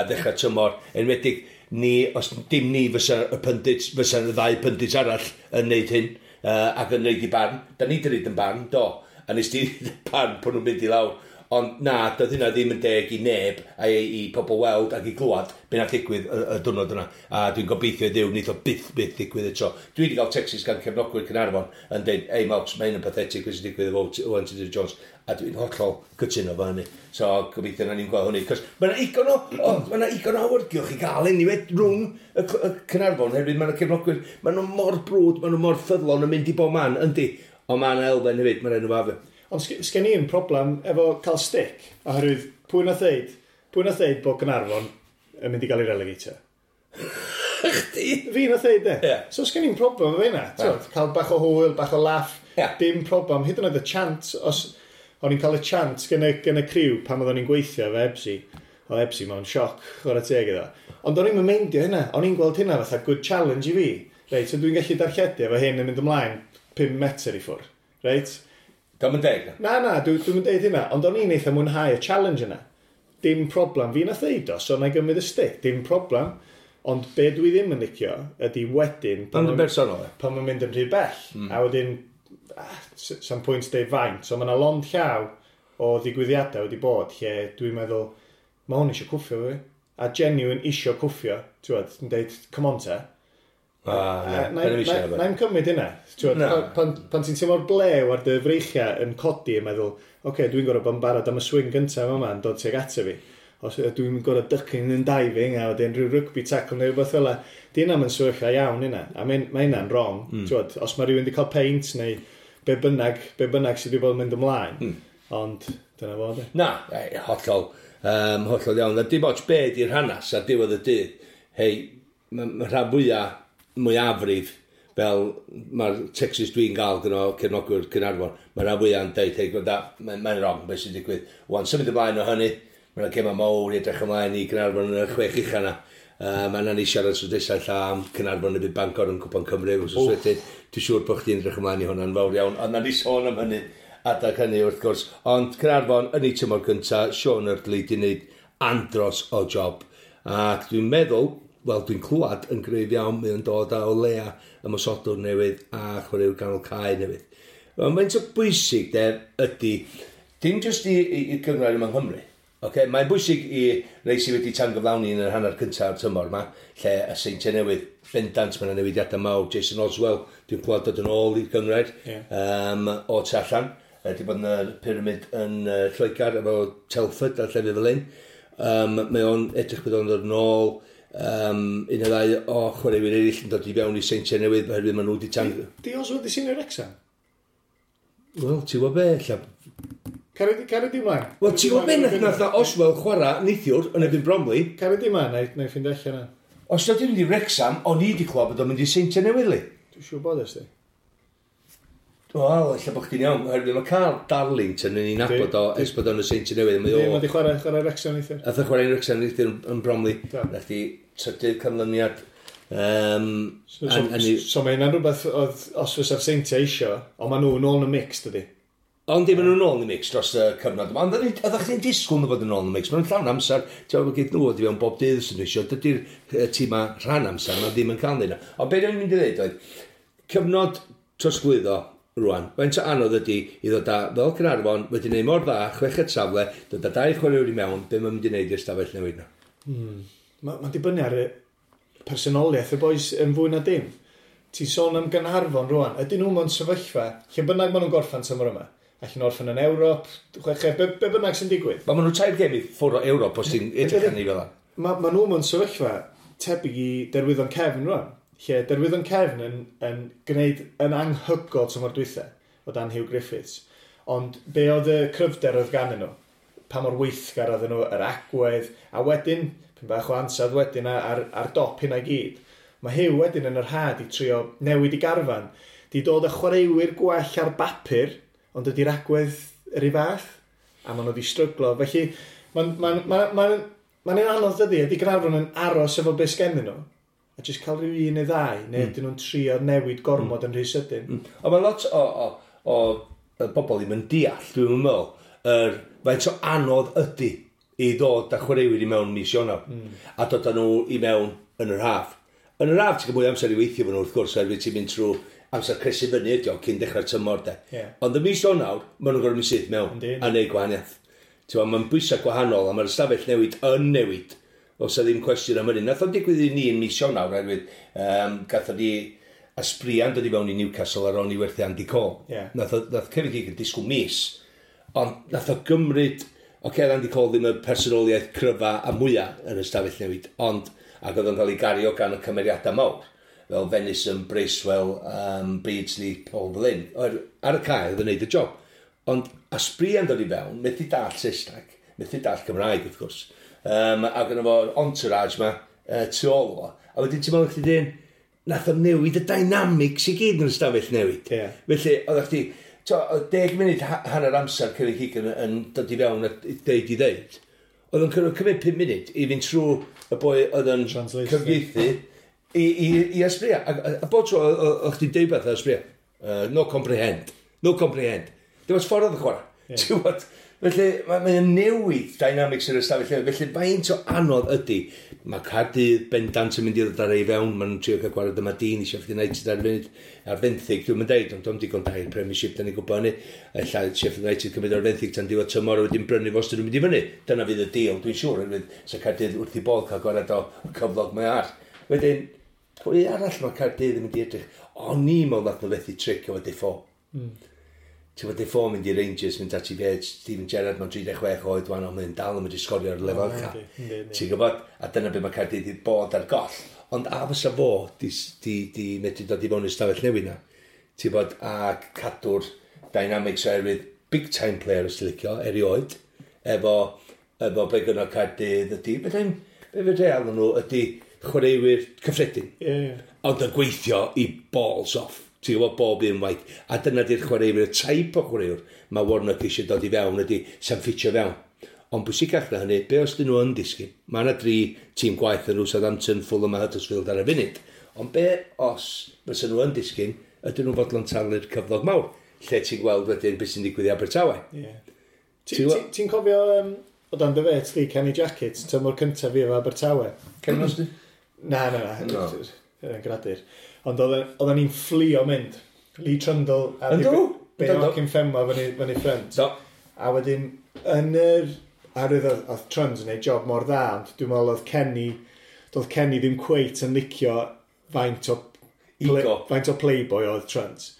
ddechrau tymor, enwedig ni, os dim ni fysa y pundits, fysa y ddau pundits arall yn neud hyn, ac yn neud i barn. Da ni di neud yn barn, do. A nes di barn pan nhw'n mynd i lawr. Ond na, doedd hynna ddim yn deg i neb a i pobl weld ac i glwad be nath ddigwydd y diwrnod yna. A dwi'n gobeithio i Dduw, neith o byth byth ddigwydd eto. Dwi wedi cael texts gan cefnogwyr Caernarfon yn dweud, "Ei Mox, mae hyn yn pathetic beth sy'n digwydd efo Owen Tudur Jones." A dwi'n hollol cytuno fo hynny. So gobeithio na ni'n gweld hynny. Cos mae yna igon o, o, mae yna igon o awyrgylch i gael anyway rhwng y Caernarfon. Hefyd mae yna cefnogwyr, mae nhw mor brwd, mae nhw mor ffyddlon yn mynd i bob man, yndi. Ond mae yna elfen hefyd, mae'n enw fo. Ond sgen i'n problem efo cael stick, oherwydd pwy nath ddeud bod Gaernarfon yn mynd i gael ei relegatio? Chdi? Fi nath ddeud e. Ie. So sgen i'n problem efo hynna. T'wod, cael bach o hwyl, bach o laff, dim problem. Hyd yn oed y chant, os o'n i'n cael y chant gen y criw pan oeddwn i'n gweithio efo Ebsi, oedd Ebsi mewn sioc, chwarae teg iddo. Ond o'n i'n meindio hynna, o'n i'n gweld hynna fatha good challenge i fi. Reit, so dwi'n gallu darlledu efo hyn yn mynd ymlaen 5 metr i ffwrdd. Reit? Dio'm yn deg. Na, dwi'n deud hynna, ond o'n i'n eitha mwynhau y challenge yna. Dim problem. Fi nath ddeud o, so na i gymryd y stick, dim problem. Ond be dwi ddim yn licio ydy wedyn Ond yn bersonol, e. pan mae'n mynd yn rhy bell. A wedyn, sam pwynt deud faint. So mae yna lond llaw o ddigwyddiadau wedi bod lle dwi'n meddwl, mae hwn eisiau cwffio fi. A genuine isio cwffio. Ti'n gwbod, yn deud, "Come on te." Ah, ie. Na Da ni'm eisiau efo. na i'm cymryd hynna. Ti'n gwbod, Na. pan ti'n teimlo'r blew ar dy freichiau yn codi yn meddwl, oce, okay, dwi'n gorfod bod yn barod am y swing gyntaf yma yn dod tuag ato fi. Os dwi'n gorfod ducking and diving a wedyn rhyw rugby tackle neu rhywbeth fel 'na. Di hynna'n yn sefyllfa iawn hynna. A mae hynna'n wrong. Ti'n os mae rhywun wedi cael peint neu be bynnag sydd wedi bod yn mynd ymlaen. Ond dyna fo, de. Na, hollol, hollol iawn. A dim ots be di'r hanas ar diwedd y dydd. Hei, mae ma rhan fwyaf, mwyafrif, fel mae'r texts dwi'n gael gyda cefnogwyr Caernarfon, mae rhan fwyaf yn deud, "Hei, gwranda, mae'n mae wrong beth sy'n digwydd." Wan, symud ymlaen o hynny, mae'n gema mawr i edrych ymlaen i Caernarfon yn y chwech ucha na. Mae yna ni siarad tro nesaf lla am Caernarfon y byd Bangor yn Cwpan Cymru, wrth wedyn. Dwi'n siŵr bod chdi'n edrych ymlaen i hwnna'n fawr iawn, ond na ni sôn am hynny adag hynny wrth gwrs. Ond Caernarfon yn ei tymor gyntaf, Sean Eardley di wneud andros o job. Ac dwi'n meddwl, wel dwi'n clywed yn gryf iawn, mae o'n dod â o leia ymosodwr newydd a chwaraewr ganol cae newydd. Mae'n faint o bwysig de ydy, dim jyst i gynghrair yma yng Nghymru. Okay? Mae'n bwysig i rei sydd wedi tangyflawni yn yr hanner cyntaf o'r tymor yma, lle y Seintiau Newydd, bendant, mae yna newidiadau mawr. Jason Oswell, dwi'n clywed dod yn ôl i'r gynghrair o tu allan. Wedi bod yn y pyramid yn Lloegr efo Telford a llefydd fel un. Mae o'n edrych bod o'n dod yn ôl. Un neu ddau o chwaraewyr eraill yn dod i fewn i Seintiau Newydd oherwydd maen nhw wedi tan... Di Oswell di seinio Wrexham? Wel, ti'n gwybod be, ella. Caria di mlaen. Wel, ti'n gwybod be, nath na Oswell chwarae neithiwr yn erbyn Bromley. Caria di mlaen, na i ffindio allan na. Os nad yw'n mynd i Wrexham, o'n i wedi clywed bod o'n mynd i Seintiau Newydd, li. Dwi'n siŵr bod ysdi. Wel, ella bod chdi'n iawn, oherwydd mae Carl Darlington yn ei nabod o ers bod o'n y Seintiau Newydd. Mae Di, o... mae di chwarae Wrexham neithiwr. Ath o chwarae yn Wrexham neithiwr yn Bromley. Do. Nath di trydydd canlyniad. So mae hynna'n rhywbeth oedd, os fysa'r Seintiau isio, ond maen nhw nôl yn y mix, dydy. Ond dim nhw'n ôl yn y mix dros y cyfnod yma. Ond oeddech chdi'n disgwyl nhw fod yn ôl yn y mix. Maen nhw'n llawn amser. Ti'n gwybod, gyd nhw wedi fewn bob dydd sy'n eisiau. Dydy'r tîma rhan amser, maen ddim yn cael nhw. Ond beth o'n i'n mynd i ddweud oedd, cyfnod trosglwyddo rwan, faint o anodd ydy i ddod â, fel Caernarfon, wedi gwneud mor dda, chweched safle, dod â dau chwaraewr i mewn, be mae'n mynd i wneud i'r stafell newid na? Mae ma dibynnu ar y personoliaeth y boys yn fwy na dim. Ti'n sôn am Gaernarfon rwan, ydyn nhw mewn sefyllfa, lle bynnag maen nhw'n gorffan tymor yma, Allan orffen yn Ewrop, chweched, be bynnag sy'n digwydd. Ma nhw 3 gêm i ffwrdd o Ewrop os ti'n edrych arni fel 'na. Ma nhw mewn sefyllfa tebyg i Derwyddon Cefn rwan. Lle Derwyddon Cefn yn gwneud yn anhygoel tymor dwytha o dan Hugh Griffiths. Ond be oedd y cryfder oedd ganddyn nhw? Pa mor weithgar oedden nhw, yr agwedd, a wedyn, pyn bach o ansawdd wedyn ar dop hynna i gyd. Mae Hugh wedyn yn yr had i trio newid i garfan. Di dod â chwaraewyr gwell ar bapur, ond ydy'r agwedd yr un fath, a maen nhw wedi stryglo. Felly, mae'n anodd dydy, ydy Gaernarfon yn aros efo beth sgennyn nhw, a jyst cael rhyw un neu ddau, neu ydyn nhw'n trio newid gormod yn rhy sydyn. Ond mae lot o bobl ddim yn deall, dwi'n meddwl, faint o anodd ydy i ddod â chwaraewyr i mewn mis Ionawr, a dod â nhw i mewn yn yr haf. Yn yr haf, ti'n cael mwy o amser i weithio fo nhw, wrth gwrs, oherwydd ti'n mynd trwy amser cresu fyny ydi o, cyn dechrau'r tymor, de. Ond y mis Ionawr, maen nhw'n gorfod mynd syth mewn a neud gwahaniaeth. Mae'n bwysau gwahanol, a mae'r ystafell newid yn newid. Os yna ddim cwestiwn am hynny. Nath o'n digwydd i ni yn mis Ionawr, oherwydd gathon ni Aspria'n dod i fewn i Newcastle ar ôl ni werthu Andy Cole. Nath Kevin Keegan disgwyl mis, ond nath o gymryd, oce, Andy Cole ddim y personoliaeth cryfa a mwyaf yn y stafell newid, ond ac oedd o'n cael ei gario gan y cymeriadau mawr, fel Venison, Bracewell, Beardsley, Paul Flynn. Ar y cae oedd yn neud y job. Ond Aspria'n dod i fewn, methu dall Saesneg, methu dall Cymraeg, wrth gwrs. Ac yna fo'r entourage ma tu ôl o. A wedyn ti'n meddwl chdi dyn, nath o newid y dynamics i gyd yn y stafell newid. Felly, oeddech chdi, oedd 10 munud hanner amser Kevin Keegan yn dod i fewn a deud i ddeud. Oedd o'n cymryd 5 munud i fynd trwy y boi oedd yn cyfieithu i Asprilla. A bob tro oedd chdi'n deud beth Asprilla. No comprehend. No comprehend. Dim ots ffordd oedd y chwarae. Ti'n gwbod? Felly, mae'n newid dynamics yr ystafell newid. Felly, faint o anodd ydy. Mae Caerdydd bendant yn mynd i ddod ar ei fewn. Maen nhw'n trio cael gwared yma dyn i Sheffield United ar y funud. Ar fenthyg, dwi'n mynd deud, ond dwi'n digon da i'r Premiership, da ni'n gwybod hynny. Ella Sheffield United cymryd ar fenthyg tan diwedd tymor a wedyn brynu fo os dyn nhw'n mynd i fyny. Dyna fydd y deal, dwi'n siŵr. Oherwydd sa Caerdydd wrth i bodd cael gwared o cyflog mae ar. Wedyn, pwy arall mae Caerdydd yn mynd i edrych? O'n i'n meddwl nath nhw fethu tric efo Defoe. Ti'n gwybod, Defoe mynd i Rangers, mynd at i fe, Steven Gerrard, mae'n 36 oed, wan, ond mae'n dal yn mynd i sgorio ar lefel ucha. Ti'n gwybod, a dyna beth mae Caerdydd wedi bod ar goll. Ond a fysa fo di medru dod i fewn i'r stafell newydd na. Ti'n gwybod, a cadw'r dynamics oherwydd big time player os ti'n licio, erioed, efo be gynno Caerdydd ydy, be fe real nhw ydy chwaraewyr cyffredin. Ond yn gweithio i balls off. Ti'n gwybod bob un waith. A dyna di'r chwaraewyr, y type o chwaraewr mae Warnock eisiau dod i fewn ydy sa'n ffitio fewn. Ond bwysicach na hynny, be os dyn nhw yn disgyn? Mae yna 3 tîm gwaith yn nhw, Southampton, Fulham a Huddersfield ar y funud. Ond be os fysa nhw yn disgyn, ydyn nhw'n fodlon talu'r cyflog mawr? Lle ti'n gweld wedyn beth sy'n digwydd i Abertawe? Ti'n cofio o dan dy fet di, Kenny Jackett, tymor cyntaf fi efo Abertawe? Kenny Mosby? Na, na, na. No. Yn gradur. Ond oedden ni'n fflio mynd. Lee Trundle a Yndw? Bayo Akinfenwa fyny ffrynt. Do. A wedyn, yn yr... Oherwydd oedd Trundle yn neud job mor dda, ond dwi'n meddwl doedd Kenny ddim cweit yn licio faint o Ego. faint o playboy oedd Trundle.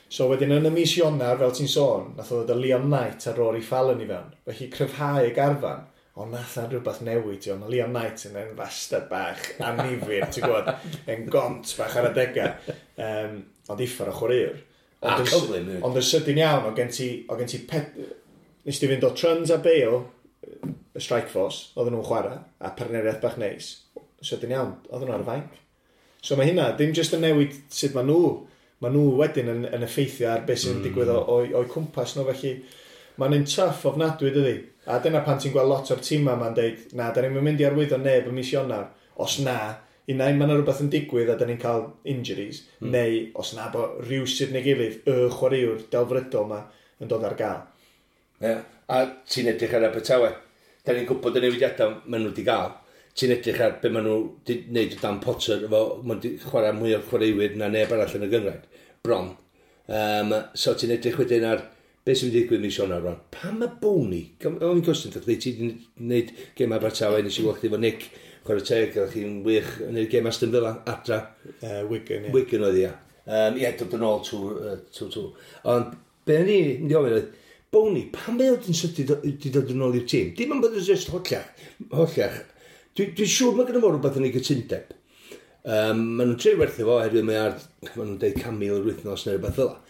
So wedyn yn y mis Ionawr, fel ti'n sôn, nath o ddod â Leon Knight a Rory Fallon i fewn. Felly cryfhau y garfan. Ond nath na rhywbeth newid, ti'n gwbod, mae Leon Knight yn fastard bach annifyr, ti'n gwybod, yn gont bach ar adegau. Ond uffar o chwaraewr. A cyflym, hefyd. Ond yn sydyn iawn, o gen ti pet, nes ti fynd o Trunds a Bale, y Strike Force, oedden nhw'n chwarae, a partneriaeth bach neis. Sydyn iawn, oedden nhw ar y fainc. So mae hynna, ddim jyst yn newid sut maen nhw, maen nhw wedyn yn effeithio ar beth sy'n digwydd o'u cwmpas nhw, felly mae'n un tough ofnadwy, dydi? A dyna pan ti'n gweld lot o'r tîmau ma'n deud, na, da ni'n mynd i arwyddo neb ym mis Ionawr. Os na, unai ma' 'na rhywbeth yn digwydd a da ni'n cael injuries, neu os na bo rhywsut neu gilydd, y chwaraewr delfrydol ma yn dod ar gael. Ie, a ti'n edrych ar Abertawe. Da ni'n gwybod y newidiadau maen nhw wedi gael. Ti'n edrych ar be maen nhw wedi wneud o Dan Potter, efo, maen nhw wedi chwarae mwy o chwaraewyr na neb arall yn y gynghrair, bron. So ti'n edrych wedyn ar be sy'n mynd i ddigwydd mis Ionawr rwan. Pam mae Bony? O'n i'n cwestiwn, chdi, ti wedi gwneud gêm Abertawe, nes i weld chdi efo Nick, chwarae teg, oeddech chi'n wych yn gwneud gêm Aston Villa, adra. Wigan, ie. Wigan oedd ia. Ie, dod yn ôl two. Ond be o'n i'n mynd i ofyn oedd, Boni, pam mae o yn sydyn di dod yn ôl i'r tîm? Dim ond bod yn just holliach. Holliach. Dwi'n siŵr mae gen fo rhywbeth yn ei gytundeb. Maen nhw'n trio werthu fo, oherwydd mae ar, maen nhw'n deud 100,000 yr wythnos neu rhywbeth fel 'na.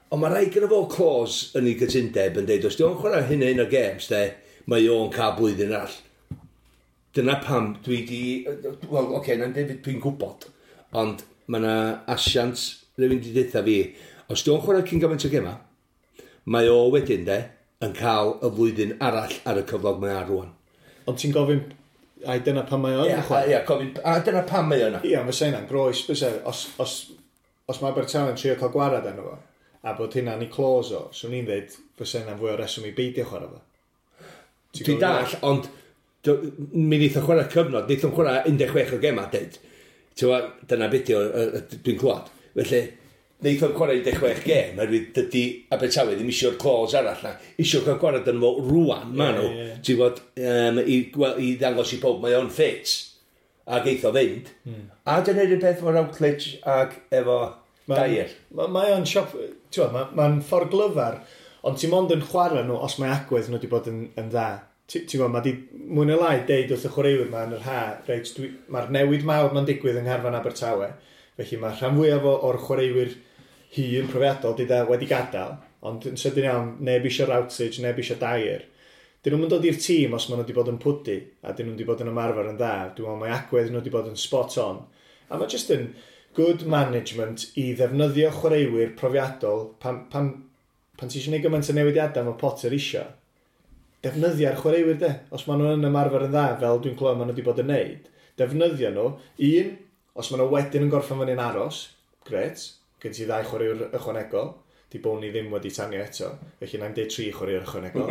Ond mae rhaid gyda fo clause yn ei gytundeb yn deud, os di o'n chwarae hyn a hyn o games, de, mae o'n cael blwyddyn arall. Dyna pam dwi di... Wel, oce, okay, na'n deud dwi'n gwybod, ond mae yna asiant rhywun di deutha fi, os di o'n chwarae cyn gymaint o gema, mae o wedyn, de, yn cael y flwyddyn arall ar y cyflog mae ar rwan. Ond ti'n gofyn, ai dyna pam mae o yn Ie, chwarae? ie, gofyn, a dyna pam mae o yna. Ie, fysa hynna'n groes, fysa, os mae Abertawe'n trio cael gwarad arno fo, a bod hynna'n ei clause o, swn i'n dweud fysa hynna'n fwy o reswm i beidio chwarae fo. Ti'n Dwi'n gwbod? dall, ond mi wneith o chwarae cyfnod, wneith o'n chwarae 16 o gema, deud. Ti'n gwbod, dyna beth yw, dwi'n clywed. Felly, wneith o'n chwarae 16 gem, oherwydd dydy Abertawe ddim isio'r clause arall na. Isio cael gwarad yn fo rwan, ma nhw. Ie, ie. Ti'n gwbod, wel, i ddangos i pob mae o'n ffit. Ac eith o fynd. A dyna'r un peth efo Routledge ac efo Dyer. Mae o'n siop, ti'n gwbod, mae'n ffordd glyfar, ond ti'n mond yn chwarae nhw os mae agwedd nhw wedi bod yn dda. Ti'n gwbod, mae di mwy neu lai deud wrth y chwaraewyr ma yn yr ha, reit, mae'r newid mawr ma'n digwydd yng Ngharfan Abertawe, felly mae rhan fwyaf o'r chwaraewyr hŷn profiadol di da wedi gadael, ond yn sydyn iawn, neb eisiau Routledge, neb eisiau Dyer. Dyn nhw'n dod i'r tîm os maen nhw wedi bod yn pwdu, a dyn nhw wedi bod yn ymarfer yn dda. Dwi'n meddwl mae agwedd nhw wedi bod yn spot on. A mae jyst yn good management i ddefnyddio chwaraewyr profiadol pan ti eisiau gwneud gymaint o newidiadau mae Potter isio. Defnyddio'r chwaraewyr de. Os maen nhw yn ymarfer yn dda, fel dwi'n clywed maen nhw wedi bod yn neud, defnyddio nhw. Un, os maen nhw wedyn yn gorffen fyny'n aros, gret, gen ti ddau chwaraewr ychwanegol. Di Boni ddim wedi tanio eto, felly na'n deud tri chwaraewr ychwanegol.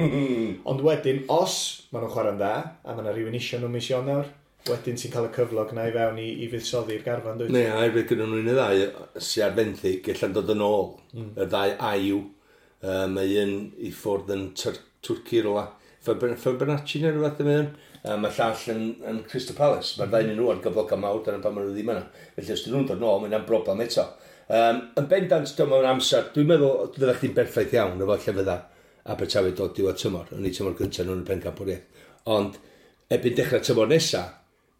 Ond wedyn, os maen nhw'n chwarae'n dda, a mae yna rhywun isio nhw mis Ionawr, wedyn ti'n cael y cyflog na i fewn i fuddsoddi'r garfan, dwyt? Ne, a hefyd gyda nhw'n y ddau sy'n ar fenthyg, allan dod yn ôl. Y ddau Ayew. Mae un i ffwrdd yn Twrci rwla. Fenerbahce neu rhywbeth yn mynd. Mae llall yn Crystal Palace. Mae'r ddau nhw ar gyflogau mawr, dyna pan maen nhw ddim yna. Felly os dyn nhw'n dod nôl, mae'n broblem eto. Yn bendant, dyma mewn amser, dwi'n meddwl fydda chdi'n berffaith iawn efo lle fydda Abertawe dod diwedd tymor, yn ei tymor gyntaf nhw'n y pencampwriaeth. Ond erbyn dechrau tymor nesa,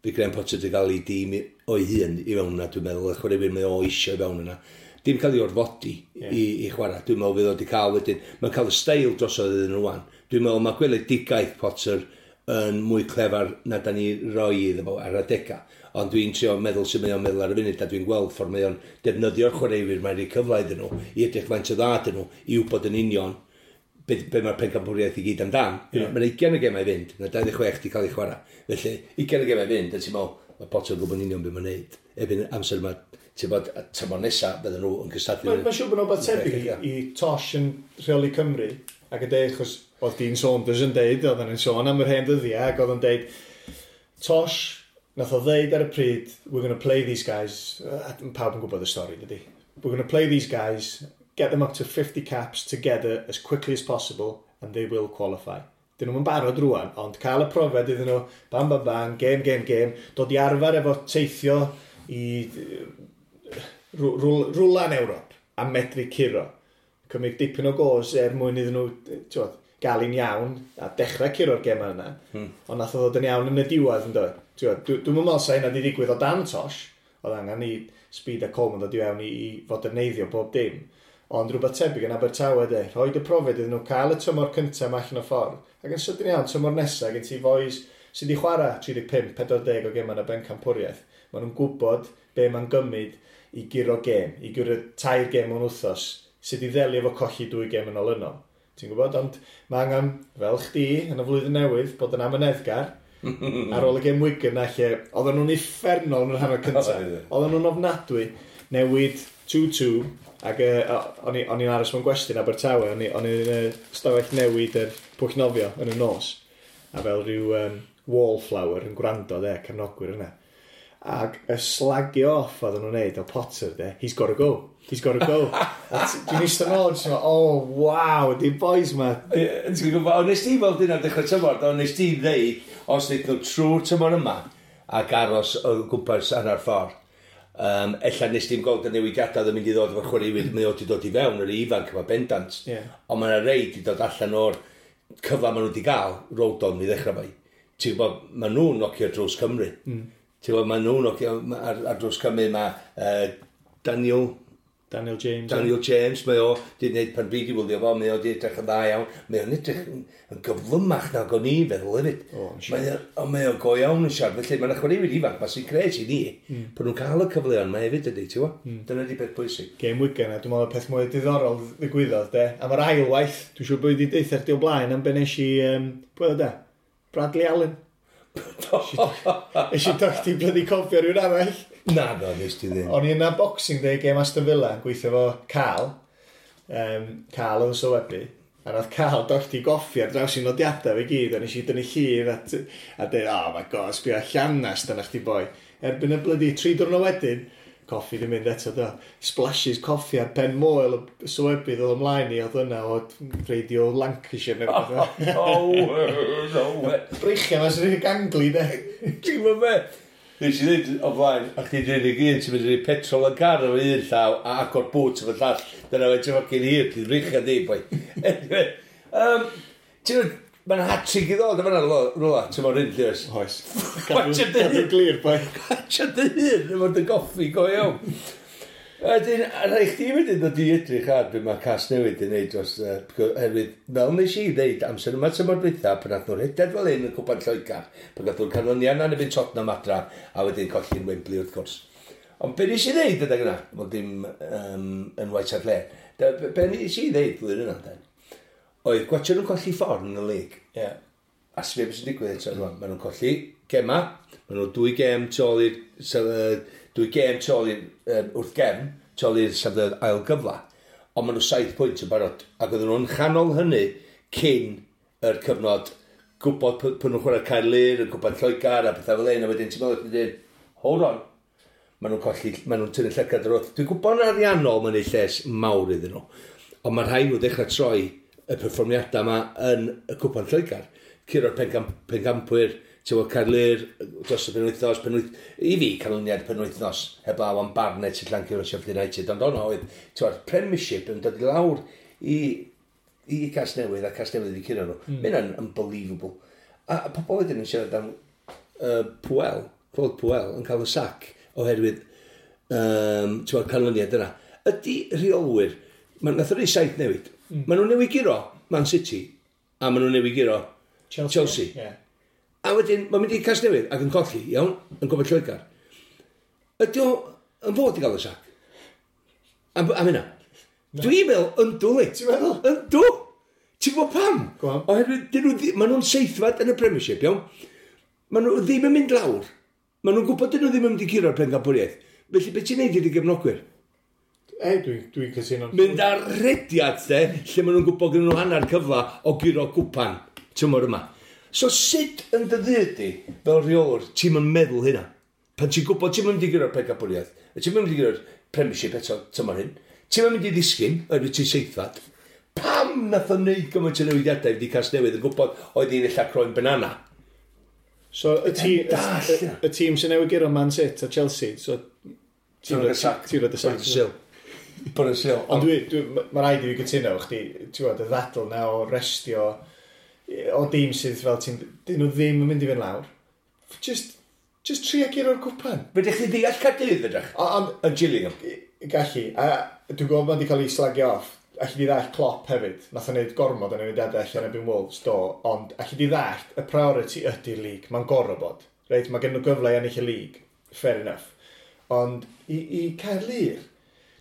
fi Graham Potter wedi cael ei dîm o'i hun i fewn yna, dwi'n meddwl, y chwaraewyr mae o eisiau i fewn yna. Dim cael ei orfodi i chwarae. Dwi'n meddwl fydd o wedi cael wedyn. Mae'n cael y steil drosodd iddyn nhw wan. Dwi'n meddwl mae gweledigaeth Potter yn mwy clefar na da ni roi iddo fo ar adega. Ond dwi'n trio meddwl sut mae o'n meddwl ar y funud, a dwi'n gweld ffordd mae o'n defnyddio'r chwaraewyr mae'n rhoi cyfle iddyn nhw, i edrych faint o dda dyn nhw, i wybod yn union be mae'r pencampwriaeth i gyd amdan. Mae'n 20 o gemau i fynd, mae 26 di cael ei chwarae. Felly, 20 o gemau i fynd, a ti'n meddwl, mae Potter yn gwybod yn union beth mae'n neud. Erbyn amser yma, ti'n bod, tymor nesaf, bydden nhw yn cystadlu. Mae'n siŵr bod nhw'n beth tebyg i Tosh yn rheoli Cymru, ac yn deud, achos oedd Dean Saunders yn deud, oedd yn sôn am yr hen ddyddiau, ac oedd yn deud, Tosh, nath o ddeud ar y pryd, we're going to play these guys, a pawb yn gwybod y stori, dydy. We're going to play these guys, get them up to 50 caps together as quickly as possible, and they will qualify. Dyn nhw'n barod rwan, ond cael y profiad iddyn nhw, bam, bam, bam, game, game, game, dod i arfer efo teithio i rwla yn Ewrop a medru curo. Cymryd dipyn o gos er mwyn iddyn nhw, t'wod, gael un iawn a dechrau curo'r gemau yna. Ond nath o ddod yn iawn yn y diwedd yn dod. T'wod, Dwi'm yn meddwl sa hynna wedi digwydd o dan Tosh. Oedd angen i Speed a Coleman ddod i fewn i foderneiddio bob dim. Ond rhywbeth tebyg yn Abertawe de, rhoi y profiad iddyn nhw, cael y tymor cyntaf yma allan o ffordd. Ac yn sydyn iawn, tymor nesaf, gen ti fois sydd wedi chwarae 35, 40 o gemau yn y bencampwriaeth. Maen nhw'n gwybod be mae'n gymryd i guro gêm, i guro tair gêm mewn wythnos, sydd i ddelio efo colli dwy gêm yn olynol. Ti'n gwybod? Ond mae angen, fel chdi, yn y flwyddyn newydd, bod yn amyneddgar, ar ôl y gêm Wigan na lle, oedden nhw'n uffernol yn yr hanner cyntaf. Oedd. Oedden nhw'n ofnadwy, newid 2-2, ac o'n i'n aros mewn gwesti yn Abertawe, o'n i'n stafell newid yr pwll nofio yn y nos, a fel rhyw wallflower yn gwrando de, cefnogwyr yna. Ac y slagio off oedden nhw'n neud o Potter de, he's got to go, he's got to go. A dwi'n eistedd nôl, jyst yn meddwl, oh wow, di boys ma. Ie, ti'n gwybod, ond nes ti weld hynna dechrau tymor, ond nes ti ddeud, os wneud nhw trwy'r tymor yma, ac aros o gwmpas hanner ffordd, Ella nes dim gweld y newidiadau oedd yn mynd i ddod efo'r chwaraewyr, mae o wedi dod i fewn yr ifanc yma bendant. Ond mae yna rei wedi dod allan o'r cyfle maen nhw wedi gael, Rodon i ddechrau fai. Ti'n gwybod, maen nhw'n nocio drws Cymru. Ti'n gwybod, maen nhw'n nocio ar drws Cymru, mae Daniel James. Daniel James, mae o wedi gwneud pan dwi wedi wylio fo, mae o wedi edrych yn dda iawn. Mae o'n edrych yn gyflymach nag o'n i feddwl hefyd. O, yn siŵr. Mae o go iawn yn siarad. Felly mae'n chwaraewyr ifanc, mae sy'n gret i ni, bod nhw'n cael y cyfleon mae hefyd ydy, ti'n gwybod? Dyna di peth bwysig. Game Wigan, a dwi'n meddwl y peth mwy diddorol ddigwyddodd, de. Am yr ail waith, dwi'n siŵr bod wedi deitha chdi o blaen am be nes i, pwy oedd o de? Bradley Allen. Nes i dochdi blydi cofio rhywun arall. Na, do, nes ti ddim. O'n i yna Boxing Day game Aston Villa yn gweithio fo Carl. Carl oedd yn sylwebu. A nath Carl dochdi goffi ar draws i nodiadau fe gyd, a nes i dynnu llun a dweud, "Oh my God, sbio llanast yna chdi boi." Erbyn y blydi 3 diwrnod wedyn, coffi di mynd eto do. Splashes coffi ar pen moel y sylwebydd oedd ymlaen i, oedd yna o Radio Lancashire neu rhywbeth. Oh, no way. Breichiau ma sy'n ganglu, de. Ti'n gwybod be? Nes i ddweud o flaen, a chdi dweud i gyd, ti'n mynd i roi petrol yn car efo un llaw a agor bwt efo llall. Dyna fe ti'n fucking hir, ti'n breichiau di, boi. Anyway, ti'n gwybod, mae'n hat-trick i ddod yma rwla, ti'n mwyn hyn, Lewis. Oes. Watch it. Cadw'n glir, boi. Gotcha dy hun, efo dy goffi, go iawn. Wedyn, a rhaid chdi wedyn ddod i edrych ar be mae Casnewydd yn neud dros, oherwydd, fel nes i ddeud, amser yma tymor dwytha, pan nath nhw'n rhedeg fel hyn yn Cwpan Lloegr, pan gath nhw'r canlyniad na yn erbyn Tottenham adra, a wedyn colli'n Wembley wrth gwrs. Ond be nes i ddeud adeg yna, wel dim yn White Hart Lane, be nes i ddeud flwyddyn yna, den, oedd gwatio nhw'n colli ffordd yn y lig. A sbio beth sy'n digwydd eto rwan. Maen nhw'n colli gema, maen nhw 2 gêm tu ôl i'r wrth gefn, tu ôl i'r safleoedd ail gyfla. Ond maen nhw 7 pwynt yn barod. Ac oedden nhw'n chanol hynny cyn yr cyfnod gwybod pwy nhw'n chwarae Caerlŷr, yn gwybod Lloegr a pethau fel un, a wedyn ti'n meddwl, ti'n dweud, "Hold on," maen nhw'n colli, maen nhw'n tynnu llygad ar wrth. Dwi'n gwybod yn ariannol mae'n ei lles mawr iddyn nhw, ond mae rhaid nhw ddechrau troi y perfformiadau yma yn y Cwpan Lloegr. Curo'r pencampwyr, ti'n gwybod, Caerlŷr, dros y penwythnos, i fi, canlyniad penwythnos, heblaw am Barnet sy'n llancio o Sheffield United, ond ono oedd, ti'n gwybod, Premiership yn dod i lawr i Casnewydd, a Casnewydd wedi curo nhw. Mm. Mae'n unbelievable. A pobl wedyn yn siarad am Puel, Claude Puel, yn cael y sac oherwydd ti'n gwybod, canlyniad yna. Ydy rheolwyr, nath o'n saith newid. Maen nhw'n newid guro Man City, a maen nhw'n newid guro Chelsea. Chelsea. A wedyn, mae'n mynd i Casnewydd ac yn colli, iawn, yn Cwpan Lloegr. Ydy o yn fod i gael y sac? Am hynna? Dwi'n meddwl, yndw li. Ti'n meddwl? Yndw! Ti'n gwybod pam? Go on. Oherwydd, dyn nhw, maen nhw'n seithfed yn y Premiership, iawn? Maen nhw ddim yn mynd lawr. Maen nhw'n gwybod dyn nhw ddim yn mynd i curo'r pencampwriaeth. Felly, beth ti'n neud i dy gefnogwyr? Ei, dwi cytuno. Mynd ar rediad, de, lle maen nhw'n gwybod gyda nhw hanner cyfla o guro gwpan tymor yma. So sut yn dy ddydd di, fel rheolwr, ti'n mynd meddwl hynna? Pan ti'n gwybod ti'n mynd i guro'r pencampwriaeth, ti'n mynd i guro'r Premiership eto tymor hyn, ti'n mynd i ddisgyn, oherwydd ti'n seithfad, pam nath o wneud gymaint o newidiadau i Casnewydd yn gwybod oedd hi'n ella croen banana? So, y Dall, y tîm sy'n newid guro Man City a Chelsea, so Ti'n rhoi y sac. Ti'n rhoi y sac. Bod y sil. Bod y sil. Ond mae rhaid i fi gytuno efo chdi, ti'n gwybod, y ddadl na o restio o dîm sydd fel ti'n, dyn nhw ddim yn mynd i fynd lawr. Just trio guro'r cwpan. Fedrech chi ddeall Caerdydd, fedrech? Ond Yn Gillingham. Gallu, a dwi'n gwybod bod wedi cael ei slagio off. Allu di ddallt Klopp hefyd. Nath o wneud gormod o newidiadau allan erbyn Wolves, do. Ond allu di ddallt, y priority ydy'r league. Mae'n gorfod bod. Reit, mae gen nhw gyfle i ennill y league. Fair enough. Ond i Caerlŷr,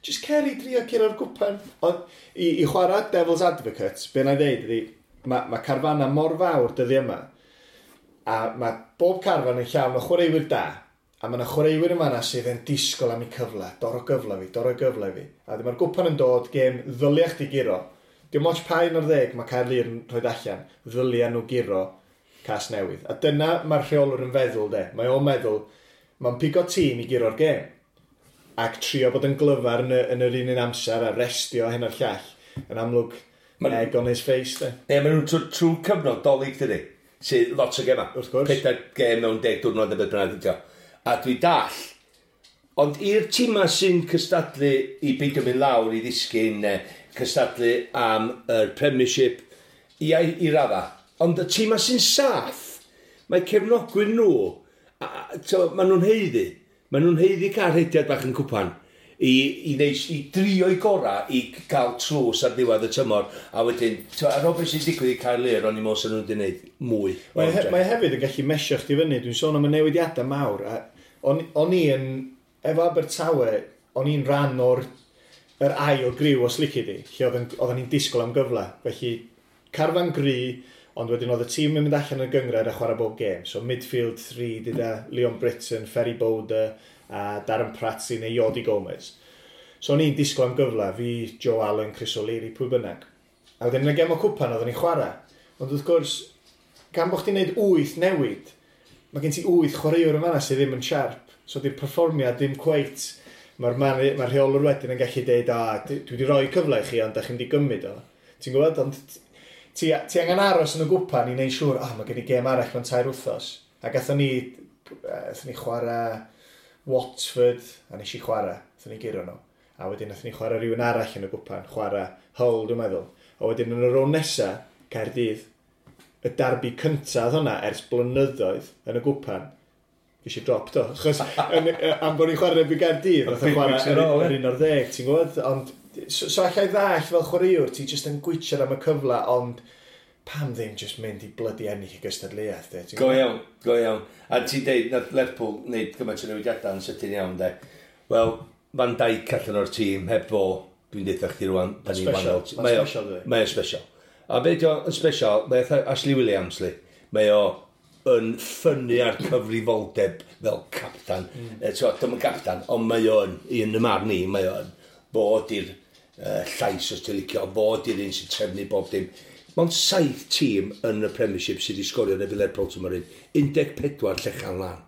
just cer i drio curo'r gwpan. Ond i chwarae Devil's Advocate, be na i ddeud ydy, mae carfanna mor fawr dyddi yma, a mae bob carfan yn llawn o chwaraewyr da, a mae yna chwaraewyr yma na sydd yn disgwyl am eu cyfle, doro gyfle fi, doro gyfle fi. A dyma'r gwpan yn dod, gêm ddylia chdi guro. Dim ots pa un o'r 10 mae Caerlŷr yn rhoi allan, ddylia nhw guro Casnewydd. A dyna mae'r rheolwr yn feddwl, de. Mae o'n meddwl, mae'n pigo tîm i guro'r gêm. Ac trio bod yn glyfar yn yr un un amser a restio hyn a'r llall. Yn amlwg, egg on his face, de. Ne, maen nhw'n trwy cyfnod Dolig, dydy. Sydd lot o gema. Wrth gwrs. 4 gêm mewn 10 diwrnod neu beth bynnag ydi o. A dwi dall, Ond i'r tîma sy'n cystadlu i beidio mynd lawr i ddisgyn, cystadlu am yr Premiership, i radda. Ond y tîma sy'n saff, mae cefnogwyr nhw, maen nhw'n haeddu. Maen nhw'n haeddu cael rhediad bach yn cwpan i drio i gorau i gael tlws ar ddiwedd y tymor. A wedyn, ar ôl beth sy'n digwydd i Caerlŷr, o'n i'n meddwl sy'n nhw wedi gwneud mwy. Mae hefyd yn gallu mesio chdi fyny. Dwi'n sôn am y newidiadau mawr. O'n i yn, efo Abertawe, o'n i'n rhan o'r yr ail griw os lici di, lle oedden ni'n disgwyl am gyfle. Felly, carfan gry, ond wedyn oedd y tîm yn mynd allan yn y gynghrair a chwarae bob gêm. So midfield 3 gyda Leon Britton, Ferry Bowder a Darren Pratley neu Jordi Gomez. So o'n i'n disgwyl am gyfle, fi, Joe Allen, Chris O'Leary, pwy bynnag. A wedyn yn y gem o cwpan oedden ni'n chwarae. Ond wrth gwrs, gan bod chdi'n neud 8 newid, mae gen ti 8 chwaraewr yn fanna sydd ddim yn sharp. So di'r perfformiad ddim cweit. Mae'r ma rheolwr wedyn yn gallu deud, "A, dwi wedi rhoi cyfle i chi, ond da chi'n di gymryd o." Ti'n gwybod, ond ti angen aros yn y gwpan i wneud siŵr, "Ah, mae gen i gêm arall mewn 3 wythnos." A gathon ni chwarae Watford, a nes i chwarae, gathon ni guro nhw. A wedyn nathon ni chwarae rhywun arall yn y gwpan, chwarae Hull, dwi'n meddwl. A wedyn yn y rownd nesa, Caerdydd, y darbi cyntaf hwnna ers blynyddoedd yn y gwpan, ges i drop do. Achos am bod ni'n chwarae erbyn Gaerdydd, nath o Big chwarae weeks in a row, yr 11, ti'n gwybod? Ond, so allai ddallt fel chwaraewr, ti jyst yn gwitsiad am y cyfle, ond pam ddim jyst mynd i blydi ennill y gystadleuaeth, de, ti'n Go gwbod? iawn, go iawn. A ti'n deud, nath Lerpwl wneud gymaint o newidiadau yn sydyn iawn, de. Wel, Van Dijk allan o'r tîm, heb fo, dwi'n deud chdi rwan, da ni'n Special, wahanol. ma'n special, dydi? Mae o'n special. A be di o'n special, mae o Ashley Williams, li. Mae o yn ffynnu ar cyfrifoldeb fel captan. Mm. Dim yn captan, ond mae o'n, i yn y marn i, mae o'n bod i'r llais os ti'n licio, bod i'r un sy'n trefnu bob dim. Mae'n saith tîm yn y Premiership sydd wedi sgorio yn erbyn Lerpwl tymor un. 14 llechan lan.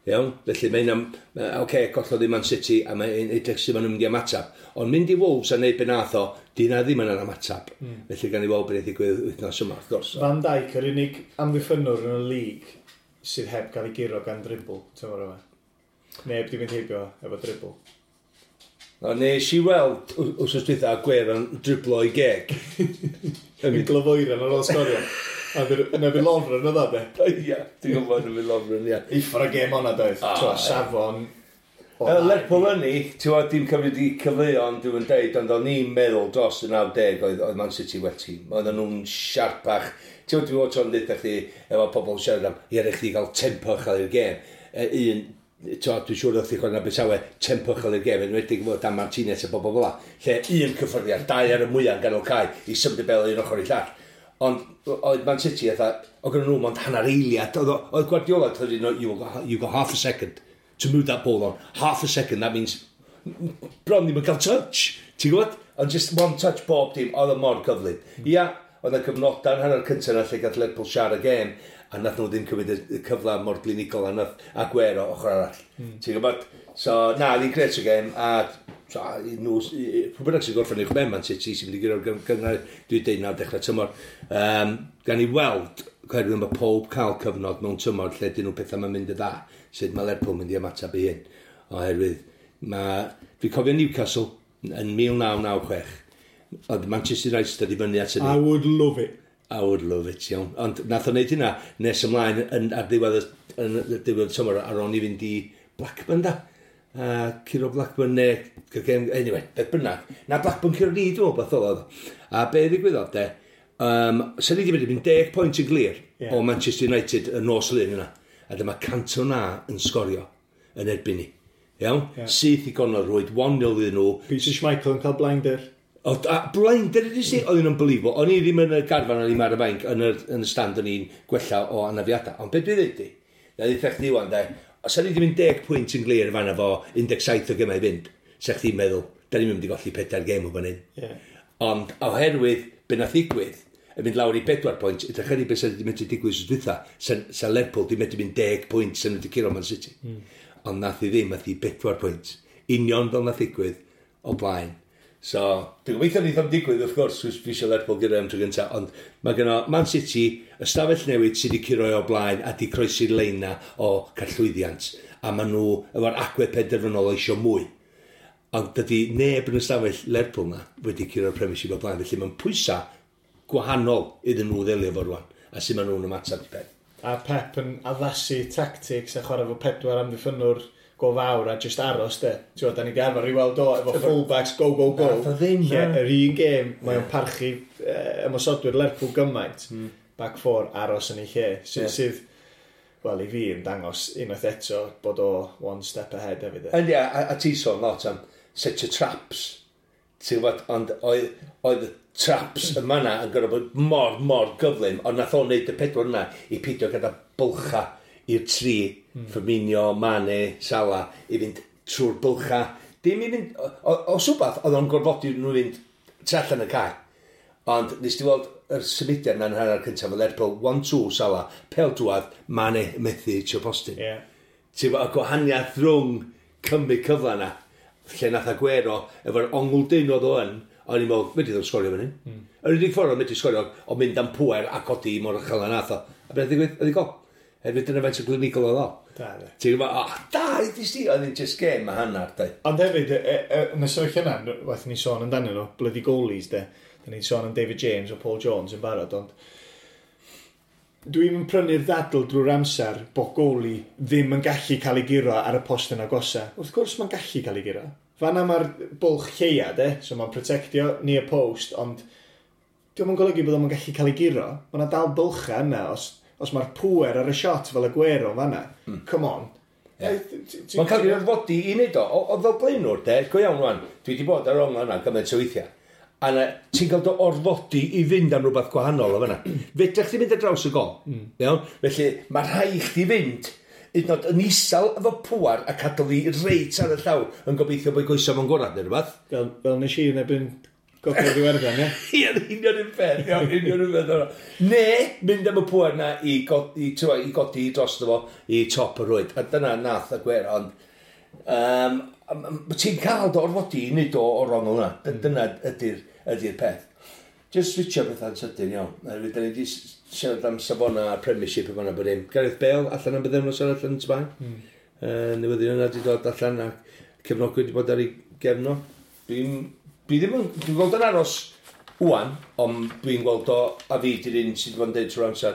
Iawn? Felly mae'n am, oce, okay, gollodd i Man City a mae'n edrych sydd maen nhw'n mynd i ymateb. Ond mynd i Wolves a neud be nath o, di na ddim yn ymateb. Felly gan i weld beth ddigwydd wythnos yma, wrth gwrs. Van Dijk, yr unig amddiffynnwr yn y lig sydd heb gael ei guro gan dribl, tymor yma. Neb di mynd heibio efo dribl. O, nes i weld wsos dwytha Aguero yn driblo i geg. Yn glyfoeren ar ôl sgorio. A yna fi Lovren oedd o, de. Ia, dwi'n gwybod yn fi Lovren, ia. Uffar o gêm o'na doedd. Ah, Twa, ie. safon. O, Lerpwl yn ni, ti'n gwybod, dim cymryd i cyfleon, dwi'n deud, ond o'n i'n meddwl dros y 90 oedd Man City well tîm. Oedden nhw'n siarpach. Ti'n gwybod, dwi'n gwybod tro'n dweud chdi, efo pobl yn siarad am, ie, rhaid chdi gael tempo uchel i'r gêm. Un, ti'n gwybod, dwi'n siŵr oedd chdi chwarae yn Abertawe, tempo uchel i'r gêm, enwedig efo Dan Martinez a bobl fel la. Lle un cyffyrddiad, dau ar y mwyaf yn ganol cae, i symud y bel un ochr i llall. Ond oedd Man City, fatha, oedd gen nhw mond hanner eiliad. Oedd Guardiola, oedd you got half a second to move that ball on. Half a second, that means bron ddim yn cael touch. Ti'n gwybod? Ond just one touch bob dim, oedd o mor gyflym. Ia, oedd y cyfnodau yn hanner cyntaf na lle gath Lerpwl siarad y gêm, a nath nhw ddim cymryd y cyfle mor glinigol a nath Aguero ochr arall. Ti'n gwybod? So, na, oedd hi'n gret o gêm, a so, i nhw, pwy bynnag sy'n gorffen uwch ben Man City sy'n mynd i guro'r gynghrair, dwi'n deud nawr dechrau tymor. Gan i weld, oherwydd mae pob cael cyfnod mewn tymor lle dyn nhw pethau mae'n mynd y dda, sut mae Lerpwl mynd i ymateb i hyn. Oherwydd, mae, dwi'n cofio Newcastle yn 1996, oedd Manchester United i fyny at hynny. I would love it. I would love it, iawn. Ond nath o wneud hynna nes ymlaen ar ddiwedd, yn y diwedd y tymor ar ôl i fynd i Blackburn da. Curo Blackburn neu... Anyway, beth bynnag. Na Blackburn curo ni, dwi'n meddwl, beth oedd. A be ddigwyddodd de, sen ni wedi mynd i fynd 10 pwynt yn glir o Manchester United y nos Lun yna. A dyma Cantona yn sgorio yn erbyn ni. Iawn? Ie. Syth i gornel rwyd, 1-0 iddyn nhw. Peter Schmeichel yn cael blinder. O, a blinder ydy si, oedd yn unbelievable. O'n i ddim yn y garfan, o'n i'n ar y fainc, yn y stand o'n i'n gwella o anafiadau. Ond beth dwi'n dweud di? Na ddeitha chdi wan, de, os o'n i wedi mynd 10 pwynt yn glir fan efo 17 o gemau i fynd, sa chdi'n meddwl, da ni'n mynd i golli pedair gêm o fan hyn. Ond oherwydd be nath ddigwydd, yn mynd lawr i 4 pwynt, ydych chi beth sydd wedi mynd i digwydd wsos dwytha, sa Lerpwl di medru mynd 10 pwynt sy'n wedi curo Man City. Ond nath i ddim, nath i 4 pwynt. Union fel nath ddigwydd o blaen. So, dwi'n gobeithio neith o'm digwydd, wrth gwrs, fi eisiau Lerpwl gyda am tro gyntaf, ond mae gynno Man City, ystafell newid sydd wedi curo o blaen a di croesi'r lein na o cael llwyddiant. a maen nhw efo'r agwedd penderfynol o isio mwy. Ond dydy neb yn y stafell Lerpwl na wedi curo'r Premiership o blaen, felly mae'n pwysau gwahanol iddyn nhw ddelio efo rwan, a sut maen nhw'n ymateb i peth. A Pep yn addasu tactics a chwarae fo pedwar amddiffynwr go fawr a just aros de. Ti'n gwbod, da ni 'di arfer i weld o efo fullbacks, go, go, go. Nath o ddim, Lle, na. yr un gêm, mae o'n parchu ymosodwyr Lerpwl gymaint. Back four, aros yn ei lle. Sydd, sydd, wel, i fi yn dangos unwaith eto bod o one step ahead hefyd, de. Yndi, a ti sôn lot am set your traps. Ti'n gwybod, ond oedd y traps yma na yn gorfod bod mor, mor gyflym, ond nath o'n neud y pedwar yna i peidio gyda bylcha i'r tri, Firmino, Mane, Salah, i fynd trwy'r bylcha. Dim i fynd, os wbath, oedd o'n gorfodi nhw fynd tu allan y cae. Ond nes ti weld yr symudiad na'n hanner cyntaf o Lerpwl, 1-2 Salah, pel drwadd, Mane methu hitio postyn. Ti'n gwbod, y gwahaniaeth rhwng cymryd cyfle yna, lle nath Aguero, efo'r ongl dyn oedd o yn, o'n i'n meddwl, medri ddim sgorio fan hyn. Yr unig ffordd o'n medru sgorio, o mynd am pwer a codi mor uchel a nath o. A beth ddigwydd? Oedd i gol. Hefyd dyna faint o glinigol oedd o. Da, de. Ti'n gwybod, oh, da, i ti, oedd hi'n just game a hanner, da. Ond hefyd, yn y sefyllfa yna, waeth ni sôn amdanyn nhw, bloody goalies, de. Da ni'n sôn am David James o Paul Jones yn barod, ond dwi'n yn prynu'r ddadl drwy'r amser bod goalie ddim yn gallu cael ei guro ar y post yn agosa. Wrth gwrs mae'n gallu cael ei guro. Fanna mae'r bwlch lleia, de, so mae'n protectio near post, ond dio'm yn golygu bod o'n gallu cael ei guro. Mae yna dal bylcha yna, os mae'r pwer ar y shot fel Aguero yn fanna. Come on. Ie. Mae'n cael ei orfodi i wneud o. O fel blaenwr, de, go iawn rwan, dwi wedi bod ar ongl yna gymaint o weithiau. A na, ti'n cael dy orfodi i fynd am rhywbeth gwahanol o fanna. Fedrech chdi fynd ar draws y gol. Iawn? Felly, mae rhaid chdi fynd hyd yn oed yn isel efo pŵar a cadw fi reit ar y llawr yn gobeithio bod goesau fo'n gorau neu rhywbeth. Fel nes i yn erbyn Gogledd Iwerddon, ie? Ie, union un peth, iawn, union un peth. O'na. Ne, mynd am y pŵer na i, i godi dros fo i top y rwyd. A dyna nath Aguero, ond ti'n cael dy orfodi i wneud o o'r ongl yna. Dyna ydy'r peth. Just switcho pethau'n sydyn iawn. Oherwydd da ni wedi siarad am safona a'r Premiership yma bod dim. Gareth Bale allan am bythefnos arall yn Sbaen. Newyddion yna wedi dod allan a cefnogwyr wedi bod ar ei gefn o. Dwi ddim yn, dwi'n gweld yn aros wan, ond dwi'n gweld o, a fi di'r un sydd wedi bod yn deud trwy'r amser,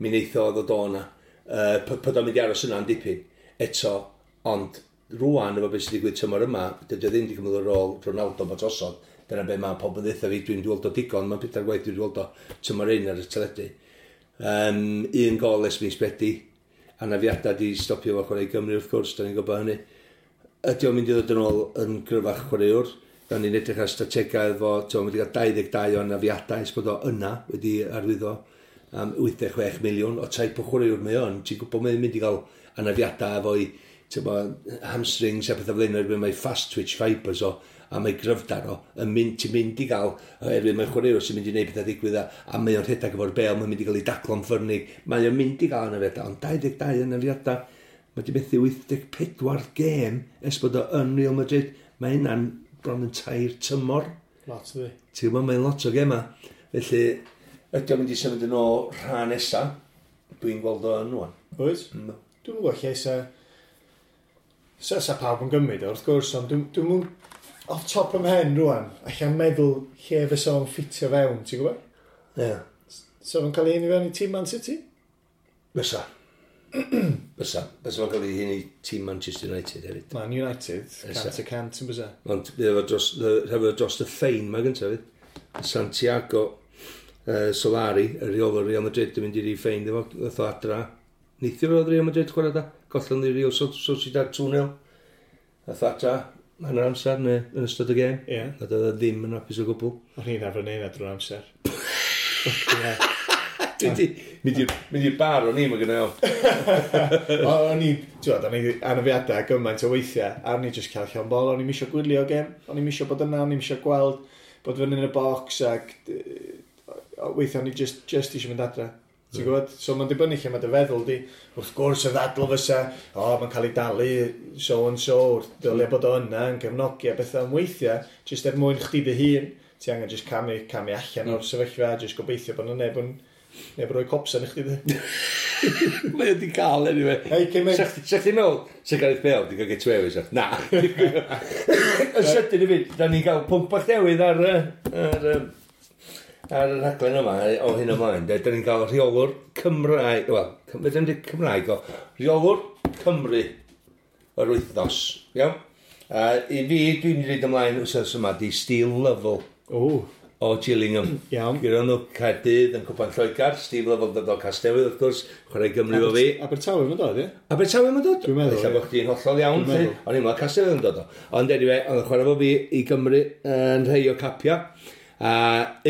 mi wneith o ddod o yna. Pod o'n mynd i aros yna yn dipyn. Eto, ond rwan efo beth sydd wedi digwydd tymor yma, dydy o ddim wedi cymryd ar ôl Ronaldo bod drosodd. Dyna be mae pobl yn ddeutha fi, dwi'n gweld o digon, mae'n pedair gwaith dwi'n gweld o tymor un ar y teledu. Un gol ers mis Medi, anafiadau di stopio fo chwarae i Gymru wrth gwrs, da ni'n gwybod hynny. Ydy o'n mynd i ddod yn ôl yn gryfach chwaraewr? Da ni'n edrych ar strategaeth efo, ti'n wedi cael 22 o anafiadau ers bod o yna wedi arwyddo am 86 miliwn o type o chwaraewr mae o'n. Ti'n gwybod mae'n mynd i gael anafiadau efo'i, ti'n bod, hamstrings a pethau fel hyn, oherwydd mae fast twitch fibres o, a mae gryfdar o, yn mynd, ti'n mynd i gael, oherwydd mae'n chwaraewr sy'n mynd i wneud pethau digwydd a mae o'n rhedeg efo'r bel, mae'n mynd i gael ei daclo'n ffyrnig, mae o'n mynd i gael anafiadau, ond 22 anafiadau, mae wedi methu 84 gêm ers bod o yn Real Madrid, mae hynna'n bron yn 3 tymor. Lot ydi. Ti'n gwybod, mae'n lot o gema. Felly, ydy o'n mynd i symud yn ôl rhan nesa, dwi'n gweld o yn wan. Wyt? No. Dwi'n gwybod lle sa pawb yn gymryd o, wrth gwrs, ond dwi'n mynd off top ym mhen rwan, allan meddwl lle fysa o'n ffitio fewn, ti'n gwybod? Ie. Yeah. So fo'n cael ei hun i fewn i tîm Man City? Fysa. Fysa. Fysa fo'n cael ei hun i tîm Manchester United hefyd. Man United, Fysa. 100% yn bysa. Ond hefo dros y ffein mae gyntaf fydd. Santiago Solari, y rheolwr Real Madrid, yn mynd i ffein efo, ddoth o adra. Neithiwr oedd Real Madrid chwarae da. Gollon ni Real Sociedad 2-0. Ddoth o adra hanner amser neu yn ystod y gêm. A doedd o ddim yn hapus o gwbl. O'n i'n arfer neud na drwy'r amser. Ie. Dwi 'di mynd i'r bar o'n i, mae gynna i. O'n i, ti'n gwbod, o'n i anafiadau gymaint o weithiau, a o'n i just cael llond bol, o'n i'm isio gwylio gêm, o'n i'm isio bod yna, o'n i'm isio gweld bod fyny yn y bocs, ac weithiau o'n i just isio mynd adre. Ti'n gwybod? So mae'n dibynnu lle mae dy feddwl di. Wrth gwrs y ddadl fysa, o, mae'n cael ei dalu so and so, dylia bod o yna yn cefnogi a bethau am weithiau, just er mwyn chdi dy hun, ti angen just camu allan o'r sefyllfa, just gobeithio bod yna neb yn Neu bod rhoi copsan i chdi, de. Mae wedi cael, anyway. Hei, cyn mynd. Sa chdi'n meddwl, sa Gareth Bale wedi cael get away with it? Na. Yn sydyn i fi, da ni'n cael pwnc bach newydd ar y rhaglen yma o hyn ymlaen. Da ni'n cael rheolwr Cymraeg, wel, fedra ni'n dweud Cymraeg o, rheolwr Cymru yr wythnos, iawn? I fi, dwi'n mynd i reid ymlaen wythnos yma, di Steve Lovell O, o Gillingham. Iawn. Gyda nhw Caerdydd yn Cwpan Lloegr, Steve Lovell dod o Casnewydd, wrth gwrs, chwarae Gymru o fi. Abertawe mae'n dod, ie? Abertawe mae'n dod? Dwi'n meddwl, Ella ie. bod chdi'n hollol iawn, Dwi'n lly. meddwl. O'n i'n meddwl Casnewydd yn dod o. Ond anyway, oedd yn chwarae fo fi i Gymru yn rhai o capia. A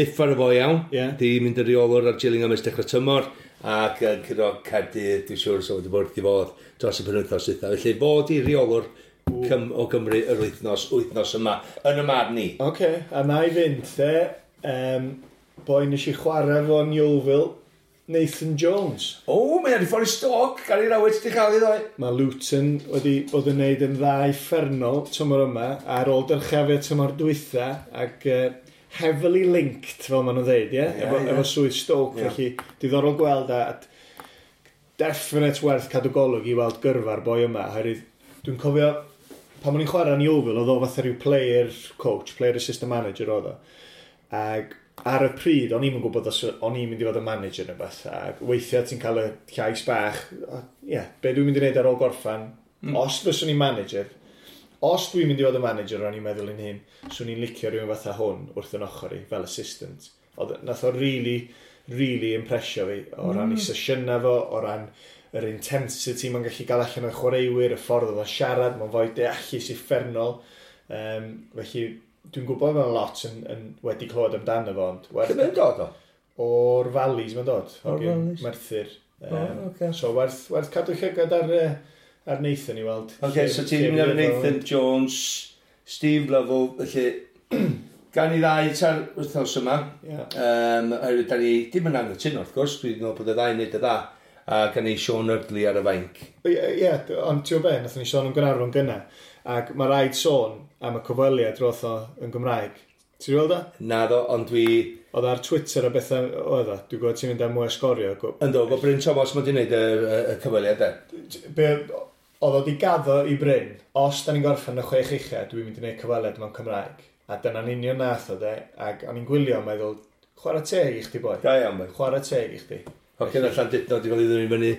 uffar o fo iawn. Ie. Di mynd yn reolwr ar Gillingham ers dechrau tymor. Ac yn curo Caerdydd, dwi'n siŵr, so wedi bod wrth i fod dros y penwythnos dwytha. Felly fod i reolwr o Gymru yr wythnos yma, yn y marn i. Oce, a na i fynd, de. Boi nes i chwarae fo yn Yeovil, Nathan Jones. O, mae ar ei ffordd i Stoke, Gary Rowett di cael ei ddoe. Mae Luton wedi bod yn neud yn dda uffernol tymor yma, ar ôl dyrchafu tymor dwytha, ac heavily linked, fel maen nhw'n dweud, ie? Ie, efo, ie. efo swydd Stoke, Ie. felly diddorol gweld a definite werth cadw golwg i weld gyrfa'r boi yma, oherwydd dwi'n cofio pan o'n i'n chwarae yn Yeovil, oedd o fatha rhyw player coach, player assistant manager oedd o. Ac ar y pryd, o'n i'm yn gwybod os o'n i'n mynd i fod yn manager neu beth. Ac weithiau ti'n cael y llais bach, ie, yeah, be dwi'n mynd i wneud ar ôl gorffan, os fyswn i'n manager, os dwi'n mynd i fod yn manager, o'n i'n meddwl yn hyn, swn i'n licio rhywun fatha hwn wrth yn ochr i, fel assistant. Oedd, nath o really, really impresio fi, o ran ei sesiynau fo, o ran yr intensity mae'n gallu gael allan o'r chwaraewyr, y ffordd oedd o'n siarad, mae'n fwy deallus uffernol. Felly, dwi'n gwybod mewn lot yn wedi clywed amdano fo, ond Lle werth, mae'n dod o? o'r Valleys mae'n dod, O'r hogyn Valleys. Merthyr. O, ocê. So werth cadw llygad ar Nathan i weld. Oce, so ti'n mynd ar Nathan Jones, Steve Lovell, felly gan i ddau ta'r wythnos yma. Ie. Oherwydd da ni dim yn anghytuno, wrth gwrs, dwi'n meddwl bod y ddau'n neud y dda, a gan i Sean Eardley ar y fainc. Ie, ie, ond ti'n gwybod be, nathon ni sôn am Gaernarfon gynna, ac mae rhaid sôn am y cyfweliad roth o yn Gymraeg. Ti'n gweld o? Naddo, ond dwi... Oedd ar Twitter a bethau oedd o. Dwi'n gwybod ti'n mynd am mwy o sgorio. Ynddo, bod Bryn Thomas mae di wneud y cyfweliad e. Be, oedd o di gaddo i Bryn, os da ni'n gorffen y chwech ucha, dwi'n mynd i wneud cyfweliad mewn Cymraeg. A dyna'n union nath o de, ac o'n i'n gwylio yn meddwl, chwarae teg i chdi boi. Da iawn, boi. Chwarae teg i chdi. Hogyn allan Llandudno, di fel i ddod i fyny,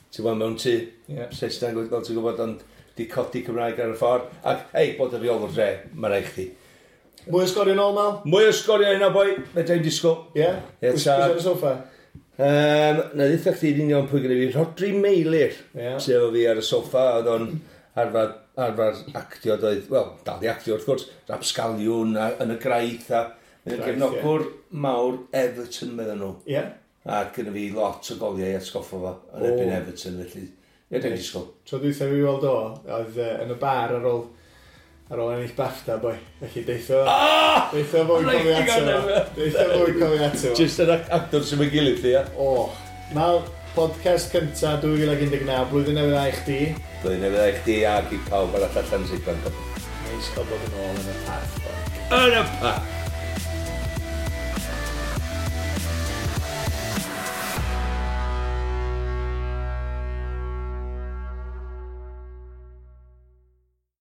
ti'n gwybod, mewn tŷ, Ie. Saesneg, fel ti'n gwybod, ond di codi Cymraeg ar y ffordd. Ac, ei, bod y rheolwr dre, mae rhaid chdi. Mwy o sgorio nôl, Mal? Mwy o sgorio yna, boi, fedra i'n disgwyl. Ie? Ie, Pwy ta. sy'n ar y soffa? Na ddeitha chdi yn union pwy gyda fi, Rhodri Meilir, Ie. sydd efo fi ar y soffa, oedd o'n arfer actio, doedd, wel, dal i actio wrth gwrs, Rapsgaliwn a, yn y graith, a mae'n Graith, gefnogwr mawr Everton, meddyn nhw. Ie? A gyda fi lot o goliau i atgoffa fo yn O. erbyn Everton, felly, ie, dwi'n disgwyl. Tro dwytha fi weld o, oedd yn y bar ar ôl ennill BAFTA, boi. Felly deitho... Ah! Deitho fwy Reit, cofio ti'n ato gael fo. Deitho fwy cofio ato fo. Just yr actor sy'n mynd gilydd, ia. O, Mal, podcast cynta 2019, blwyddyn newydd dda i chdi. Blwyddyn newydd dda i chdi ac i pawb arall allan sy'n gwrando. Neis cael bod yn ôl yn y parth, boi. Yn y parth!